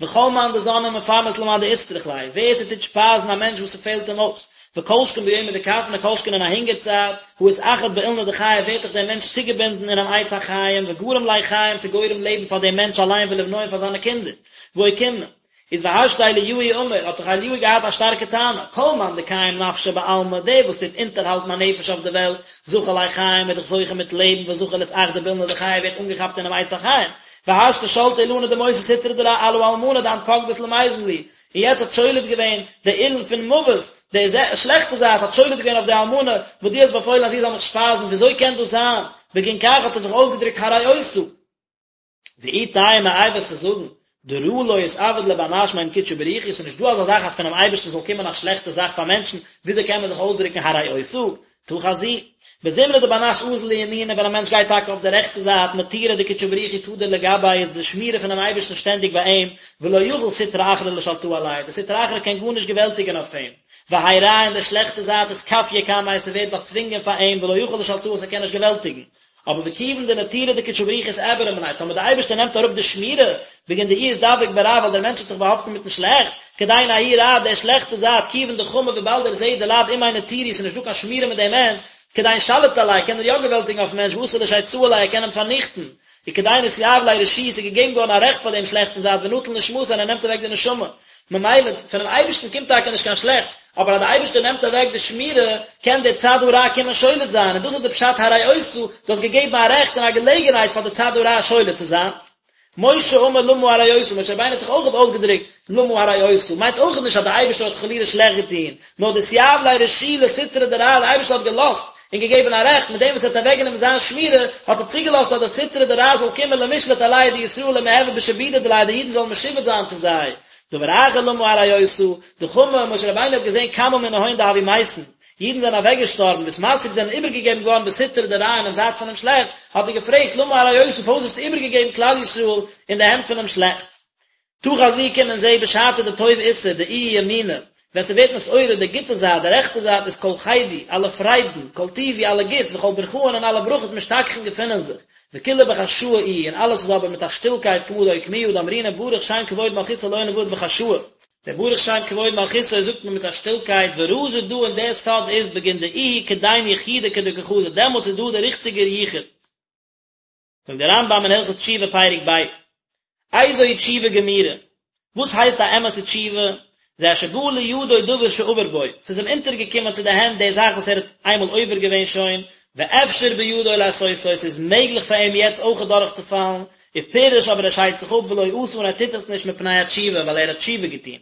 וכל מאן דזן ומפרנס למאן דאיצטריך ליה, ווער ס'טוט שפייזן א מענטש וואס ס'פעלט אים אויס, וכל שכן ביומא דכפנא כל שכן אין א הונגער צייט, הא אתאחד באילנא דחיי ווערט דאך דער מענטש צוגעבינדן אינעם עץ החיים, וגרים ליה חיים ס'גורם לעבן פאר דעם מענטש אליין ולבנוי און פאר זיינע קינדער, ואוקימנא. איז והשתא אליהו אמר, האט דאך אליהו געהאט א שטארקע טענה, כל מאן דקיים נפשא בעלמא, דער וואס טוט אונטערהאלטן א נפש אויף די וועלט, זכי ליה חיים איז דאך זוכה מיט לעבן וזכי לאתאחדא באילנא דחיי ווערט אנגעכאפט אינעם עץ החיים, והשתא שלטא אילנא דמותא סטרא דרע על האלמנה דאת פקדת למיזן לי, און יעצט האט שולט געווען די אילן פון מוות, די שלעכטע זייט האט שולט געווען אויף די אלמנה וואס דו האסט באפוילן אז זי זאל מיך שפייזן, וויאזוי קען דאס זיין? בגין כך האט ער זיך אויסגעדרוקט הרעותה. ואי תימא איי וועסטו זאגן, דרע לא אתעביד לבר נש מעם קודשא בריך הוא, ס'איז נישט דא אזא זאך אז פונעם אייבערשטן זאל קומען א שלעכטע זאך פאר מענטשן, וויאזוי קען מען זיך אויסדרוקן הרעותה? תא חזי, בזמנא דבר נש אזיל לימינא ווען א מענטש גייט טאקע אויף די רעכטע זייט נטירא דקודשא בריך הוא תדיר לגביה איז די שמירה פונעם אייבערשטן שטענדיג ביי אים, ולא יכיל סטרא אחרא לשלטאה עליה, די סטרא אחרא קען גארנישט געוועלטיגען אויף אים, והאי רע און די שלעכטע זייט אתכפיא קמיה ס'ווערט באצווינגען פאר אים ולא יכיל לשלטאה ס'קען נישט געוועלטיגן. אבער וכיון דנטירא דקודשא בריך הוא אתעברה מיניה, טאמער די אייבערשטער נעמט אראפ די שמירה, בגין דאיהו אתדבק ברע ווייל דער מענטש האט זיך באהאפטן מיטן שלעכטס, כדין ההוא רע דער שלעכטע זייט, כיון דחמי וויבאלד ער זעט דלאו עמיה נטירא ס'איז נישט דא קיין שמירה מיט דעם מענטש, כדין שליט עליה קען ער יא געוועלטיגן אויפן מענטש ואתי לשייצאה עליה ער קען אים פארניכטן, וכדין אתיהיב ליה רשו ס'איז געגעבן געווארן א רעכט פאר דעם שלעכטן זייט ונטיל נשמתיה און ער נעמט אוועק די נשמה. ממילא, פונעם אייבערשטן קומט טאקע נישט קיין שלעכטס, אבער אז דער אייבערשטער נעמט אוועק די שמירה, קען דער צד הרע קומען שולט זיין, און דאס איז די פשט הרעותה, דו האסט געגעבן א רעכט און א געלעגנהייט פאר די צד הרע שולט צו זיין. משה אמר למה הרעותה, משה רבינו האט זיך אויכעט אויסגעדרוקט למה הרעותה, מיינט אויכעט נישט אז דער אייבערשטער האט חלילה שלעכט געטון, נאר דאתיהיב ליה רשו לסטרא דרע, דער אייבערשטער האט געלאזט און געגעבן א רעכט, מיט דעם וואס ער האט אוועקגענומען זיין שמירה, האט ער צוגעלאזט אז די סטרא דרע זאל קומען למשלט עלייהו דישראל ומיהוו בשעבודא דיליה די אידן זאלן משועבד זיין צו זיי. דבר אחר למה הרעותה, דחמי, משה רבינו האט געזען כמה מנהון דהוו מתין, אידן זענען אוועקגעשטארבן, ואתמסרו זענען איבערגעגעבן געווארן בסטרא דרע אינעם זייט פונעם שלעכטס, האט ער געפרעגט למה הרעותה פארוואס האסטו איבערגעגעבן כלל ישראל אין די הענט פונעם שלעכטס? תא חזי קום און זעה בשעתא דטוב אתער דאיהו ימינא, ווען ס'ווערט נתעורר די גוטע זייט, די רעכטע זייט איז כל חידו, אלע פריידן, כל טיבו, אלע גוטס, וכל ברכאן און אלע ברכות משתכחין געפינען זיך, וכולא בחשאי איהו, און אלעס איז אבער מיט א שטילקייט כמה דאוקמוה דאמרינן ברוך שם כבוד מלכותו לעולם ועד בחשאי. דער ברוך שם כבוד מלכותו זאגט מען מיט א שטילקייט ורזא דא און דער סוד איז בגין דאיהו כדין יחודא כדקא חזי דעמאלטס איז דא דער ריכטיגער יחוד. זאגט דער רמב"ם אין הלכות תשובה פרק ב', איזוהי תשובה גמורה, וואס הייסט א אמת'ע תשובה, זה שבא לידו דבר שעבר בו, ס'איז אים אונטערגעקומען צו די הענט די זאך וואס ער האט איינמאל עובר געווען שוין, ואפשר בידו לעשותו, ס'איז מעגליך פאר אים יעצט אויך דורכצופאלן, ופירש אבער ער שיידט זיך אפ ולא עשה און ער טוט עס נישט מפני התשובה ווייל ער האט תשובה געטון.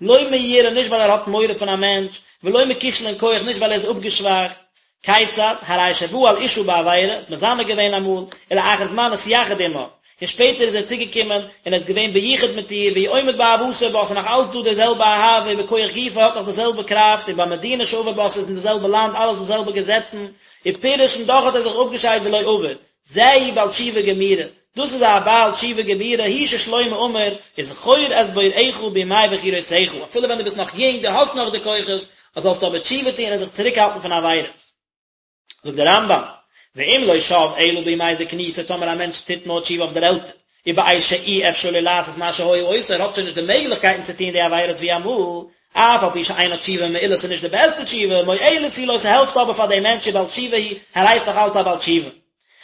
לא מיראה נישט ווייל ער האט מורא פון א מענטש, ולא מכשלון כח נישט ווייל ער איז אפגעשוואכט, כיצד, הרי שבא על אשה בעבירה, האט מזנה געווען אמאל, ולאחר זמן נתייחד עמה, און שפעטער איז ער צוגעקומען און ער איז געווען ביחוד מיט איר, והוא עומד באהבתו בה, ס'איז נאך אלץ דא די זעלבע אהבה, ובכח גופו האט נאך די זעלבע קראפט, ובמדינה שעבר בה, ס'איז אין די זעלבע לאנד, אלעס די זעלבע געזעצן, ופירש און דאך האט ער זיך אפגעשיידט ולא עבר, זהו בעל תשובה גמורה, דאס איז א בעל תשובה גמורה, הוא ששלמה אמר, וזכור את בוראך בימי בחורותיך, אפילו ווען דו ביסט נאך יונג, דו האסט נאך די כוחות, זאלסטו אבער תשובה טון און זיך צוריקהאלטן פון עבירות. זאגט דער רמב"ם, ואם לא שב אלא בימי זקנותו, טאמער א מענטש טוט נאר תשובה אויף דער עלטער, ובעת שאי אפשר לו לעשות מה שהיה עושה, ער האט שוין נישט די מעגליכקייטן צו טון די עבירות ווי אמאל, אף על פי שאינה תשובה מעולה ס'איז נישט די בעסטע תשובה, מועלת היא לו ס'העלפט אבער פאר דעם מענטש ובעל תשובה הוא, ער הייסט נאך אלץ א בעל תשובה.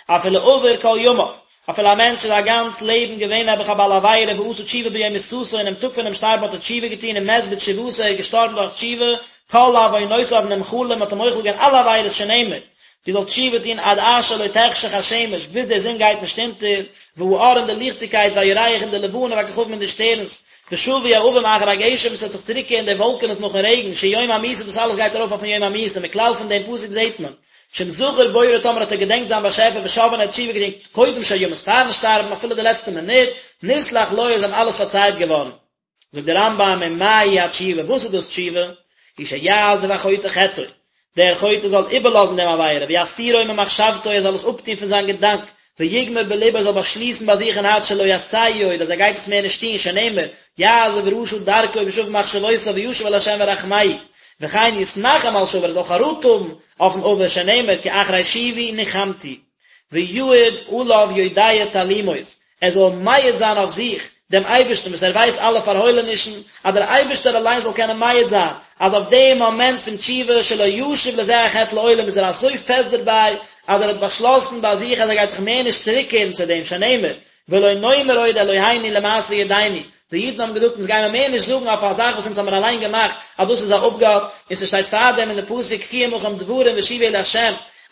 אפילו עבר כל ימיו, אפילו א מענטש איז א גאנץ לעבן געווען נעבעך א בעל עבירה ועשה תשובה ביום מיתתו אינעם טאג פונעם שטארבן האט ער תשובה געטון ומת בתשובתו ער איז געשטארבן דורך תשובה, כל עוונותיו נמחלים מ'האט אים מוחל געווען אלע עבירות שנאמר. דו זאלסט תשובה טון עד אשר לא תחשך השמש, ביז די זון גייט נישט אונטער, והאור און די ליכטיגקייט, והירח און די לבנה, והכוכבים און די שטערנס, ושבו העבים אחר הגשם, עס וועט זיך צוריקקערן די וואלקענעס נאכן רעגן, שהוא יום המיתה, דאס אלעס גייט ארויף אויפן יום המיתה, מכלל פון דעם פסוק זעט מען, שאם זכר בוראו טאמער האט ער געדענקט זיין באשעפער ושב און ער האט תשובה געטון קודם שימות פארן שטארבן אפילו די לעצטע מינוט, נסלח לו איז אים אלעס פארצייט געווארן. זאגט דער רמב"ם ומהי התשובה, וואס איז דאס תשובה? היא שיעזוב החוטא חטאו, דער חוטא זאל איבערלאזן דעם עבירה, ויסירו ממחשבתו, ער זאל עס אפטון פון זיין געדאנק, ויגמור בלבו, ער זאל באשליסן ביי זיך אין הארץ שלא יעשהו עוד, אז ער גייט עס מער נישט טון, שנאמר, יעזוב רשע דרכו ושב ממחשבותיו וישוב אל ה' וירחמהו, וכן יתנחם על שעבר, ער זאל חרטה האבן אויפן עבר, שנאמר, כי אחרי שובי נחמתי. ויעיד עליו יודע תעלומות, ער זאל מעיד זיין אויף זיך דעם אייבערשטן וואס ער ווייסט אלע פארהוילענישן, אז דער אייבערשטער אליין זאל קענען מעיד זיין אז אויף דעם מאמענט פון תשובה שלא ישוב לזה החטא לעולם איז ער אזוי פעסט דערביי אז ער האט באשלאסן ביי זיך אז ער גייט זיך מער נישט צוריקקערן צו דעם שנאמר ולא נאמר עוד אלוהינו למעשה ידינו, די אידן האבן געזאגט אונז גיימער מער נישט זאגן אויף א זאך וואס אונז האמיר אליין געמאכט אז דאס איז א אפגאט, און ס'שטייט פארדעם אין די פסוק קחו עמכם דברים ושובו אל ה',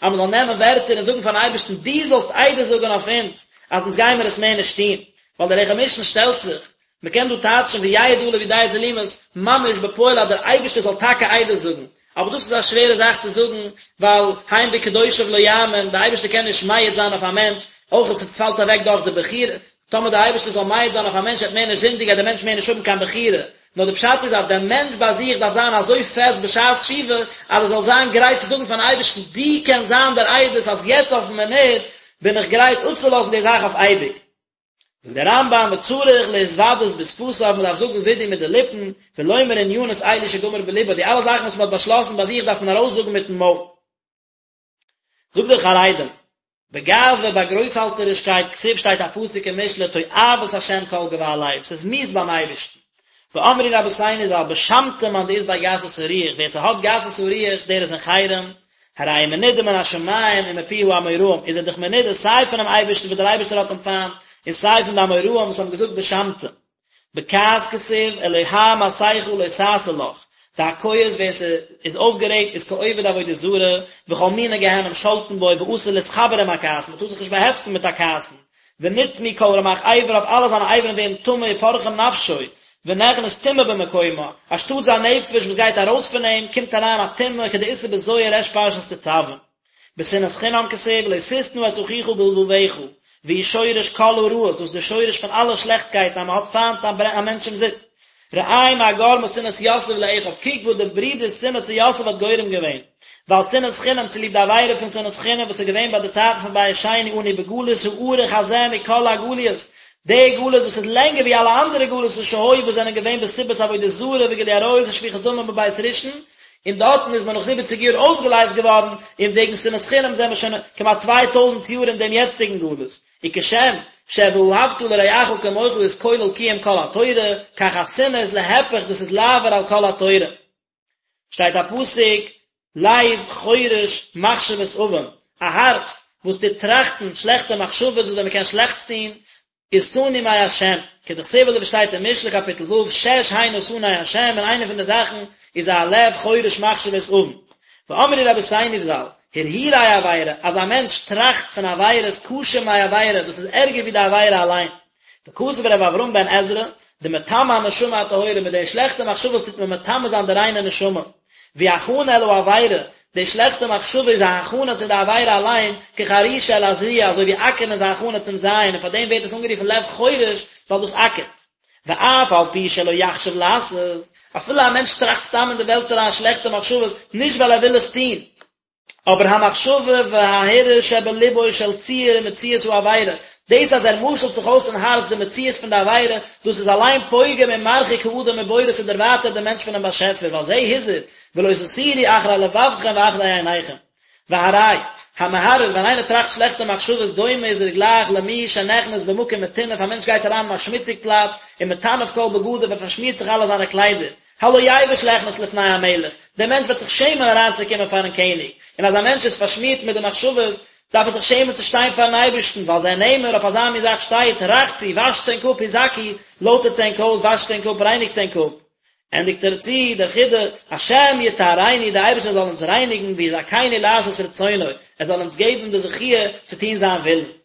אז מ'זאל נעמען ווערטער און זאגן פארן אייבערשטן דו זאלסט עדות זאגן אויף אונז אז אונז גיימער עס מער נישט טון, ווייל דער לחם משנה שטעלט זיך, מ'קען דא טייטשן ויעיד עליו יודע תעלומות ממש בפועל אז דער אייבערשטער זאל טאקע עדות זאגן, אבער דאס איז א שווערע זאך צו זאגן, ווייל הן בקדושיו לא יאמין, דער אייבערשטער קען נישט מעיד זיין אויף א מענטש, אויך עס פאלט אוועק דאך די בחירה, טאמער דער אייבערשטער זאל מעיד זיין אויף א מענטש ער וועט מער נישט זינדיגן גייט דער מענטש מער נישט האבן קיין בחירה, נאר די פשט איז אז דער מענטש ביי זיך דארף זיין אזוי פעסט בשעת תשובה אז ער זאל זיין גרייט צו זאגן פארן אייבערשטן דו קענסט זיין דער עדות אז יעצט אויפן מינוט בין איך גרייט אפצולאזן די זאך אויף אייביג. זאגט דער רמב"ם וצריך להתוודות בשפתיו מען דארף זאגן וידוי מיט די ליפן, ולומר ענינות אלו שגמר בלבו, די אלע זאכן וואס מען האט באשלאסן ביי זיך דארף מען ארויסזאגן מיטן מויל. זאגט דער חרדים, בגאווה ביי גרויסהאלטערישקייט כתיב שטייט א פסוק אין משלי תועבת השם כל גבה לב, ס'איז מיאוס ביים אייבערשטן. ואמרו רבותינו ז"ל בשמתא מאן דאית ביה גסות הרוח, ווער ס'האט גסות הרוח דער איז אין חרם, הרי הוא מנודה מן השמים ומפי האמוראים, איז ער דאך מנודה סיי פונעם אייבערשטן וואס דער אייבערשטער האט אים פיינט, און סיי פון די אמוראים וואס האבן געזאגט בשמתא. בכעס כתיב, אלוה מסכה לא תעשה לך, דהכועס ווער ס'איז אויפגערעגט איז כעובד עבודה זרה, וכל מיני גיהנום שולטין בו ואסור להתחבר עם הכעסן, מ'טאר זיך נישט באהעפטן מיט א כעסן, ונטמאו כל רמ"ח אבריו אלע זיינע אברים ווערן טמא ופורחים נפשו, ונכנס טומאה במקומה, אנשטאט זיין נפש וואס גייט ארויס פון אים, קומט אריין א טומאה כדאיתא בזוהר ריש פרשת תצוה. בשנאת חינם כתיב לא תשנא את אחיך בלבבך, והוא שורש כל הרעות, דאס איז די שורש פון אלע שלעכטקייטן אז מען האט פיינט א מענטש אומזיסט. ראה מה גרמה שנאת יוסף לאחיו, קוק וואס די ברידער'ס שנאה צו יוסף האט גורם געווען. ווייל שנאת חינם צוליב די עבירה פון שנאת חינם וואס איז געווען ביי די צייטן פון בית שני אנו בגלות הארוך הזה מכל הגליות, די גלות וואס איז לענגער ווי אלע אנדערע גלות'ן שהיו וואס זענען געווען בסיבת עבודה זרה וגילוי עריות ושפיכות דמים בבית ראשון, און דארטן איז מען נאך זיבעציג יאר אויסגעלייזט געווארן, און וועגן שנאת חינם זענען מיר שוין כמעט 2000 יאר אין דעם יעצטיגן גלות. וכשם שוואהבת לרעך כמוך איז כולל קיום כל התורה, כך השנאה איז להיפך דאס איז לעבור על כל התורה. שטייט א פסוק, לב חורש מחשבות און, א הארץ וואס טוט טראכטן שלעכטע מחשבות וויאזוי מען קען שלעכטס טון, איז שנוא מהשם, כדכתיב אזוי ווי שטייט אין משלי קאפיטל ו', שש הנה שנא השם, און איינע פון די זאכן איז א לב חורש מחשבות און. ואמרו רבותינו ז"ל, הרהורי עבירה, אז א מענטש טראכט פון עבירות קשה מעבירה, דאס איז ערגער ווי די עבירה אליין. וכתב ר' אברהם בן עזרא, דמטמא הנשמה הטהורה, מיט די שלעכטע מחשבות טוט מען מטמא זיין די ריינע נשמה. והיא הכנה אל העבירה, די שלעכטע מחשבה איז א הכנה צו די עבירה אליין, כחרישה אל הזריעה, אזוי ווי אקערן איז א הכנה צום זייען, און פאר דעם ווערט עס אנגערופן לב חורש, ווייל דאס אקערט. ואף על פי שלא יחשב לעשות, אפילו א מענטש טראכט סתם אין די וועלט אריין שלעכטע מחשבות, נישט ווייל ער וויל עס טון, אבער המחשבה וההרהור שבלבו של ציור ומציאות העבירה, דאס אז ער משל'ט זיך אויס אין הארץ די מציאות פון די עבירה, דאס איז אליין פוגם ומרחיק האדם מבוראו ס'דערווייטערט דעם מענטש פונעם באשעפער, ועל זה הזהיר, ולא תתורו אחרי לבבכם ואחרי עיניכם. והרי, המהרהר, ווען איינער טראכט שלעכטע מחשבות דומה איז ער גלייך למי שנכנס במקום מטונף, א מענטש גייט אריין אין א שמוציג פלאץ, ומטנף כל בגדיו, ער פארשמירט זיך אלע זיינע קליידער, הלא יבוש ליכנס לפני המלך, דער מענטש וועט זיך שעמען אריינצוקומען פארן קעניג, און אז א מענטש איז פארשמירט מיט די מחשבות, דארף ער זיך שעמען צו שטיין פארן אייבערשטן, ועל זה נאמר, אויף אזא מין זאך שטייט, רחצו, וואשטס ענק אפ, הזכו, לויטערטס ענק אויס, וואשטס ענק אפ, רייניגטס ענק אפ. ענדיגט ער צו דער חידא, השם יטהרנו, דער אייבערשטער זאל אונז רייניגן, ויזכנו לעשות רצונו, ער זאל אונז געבן די זכיה צו טון זיין ווילן.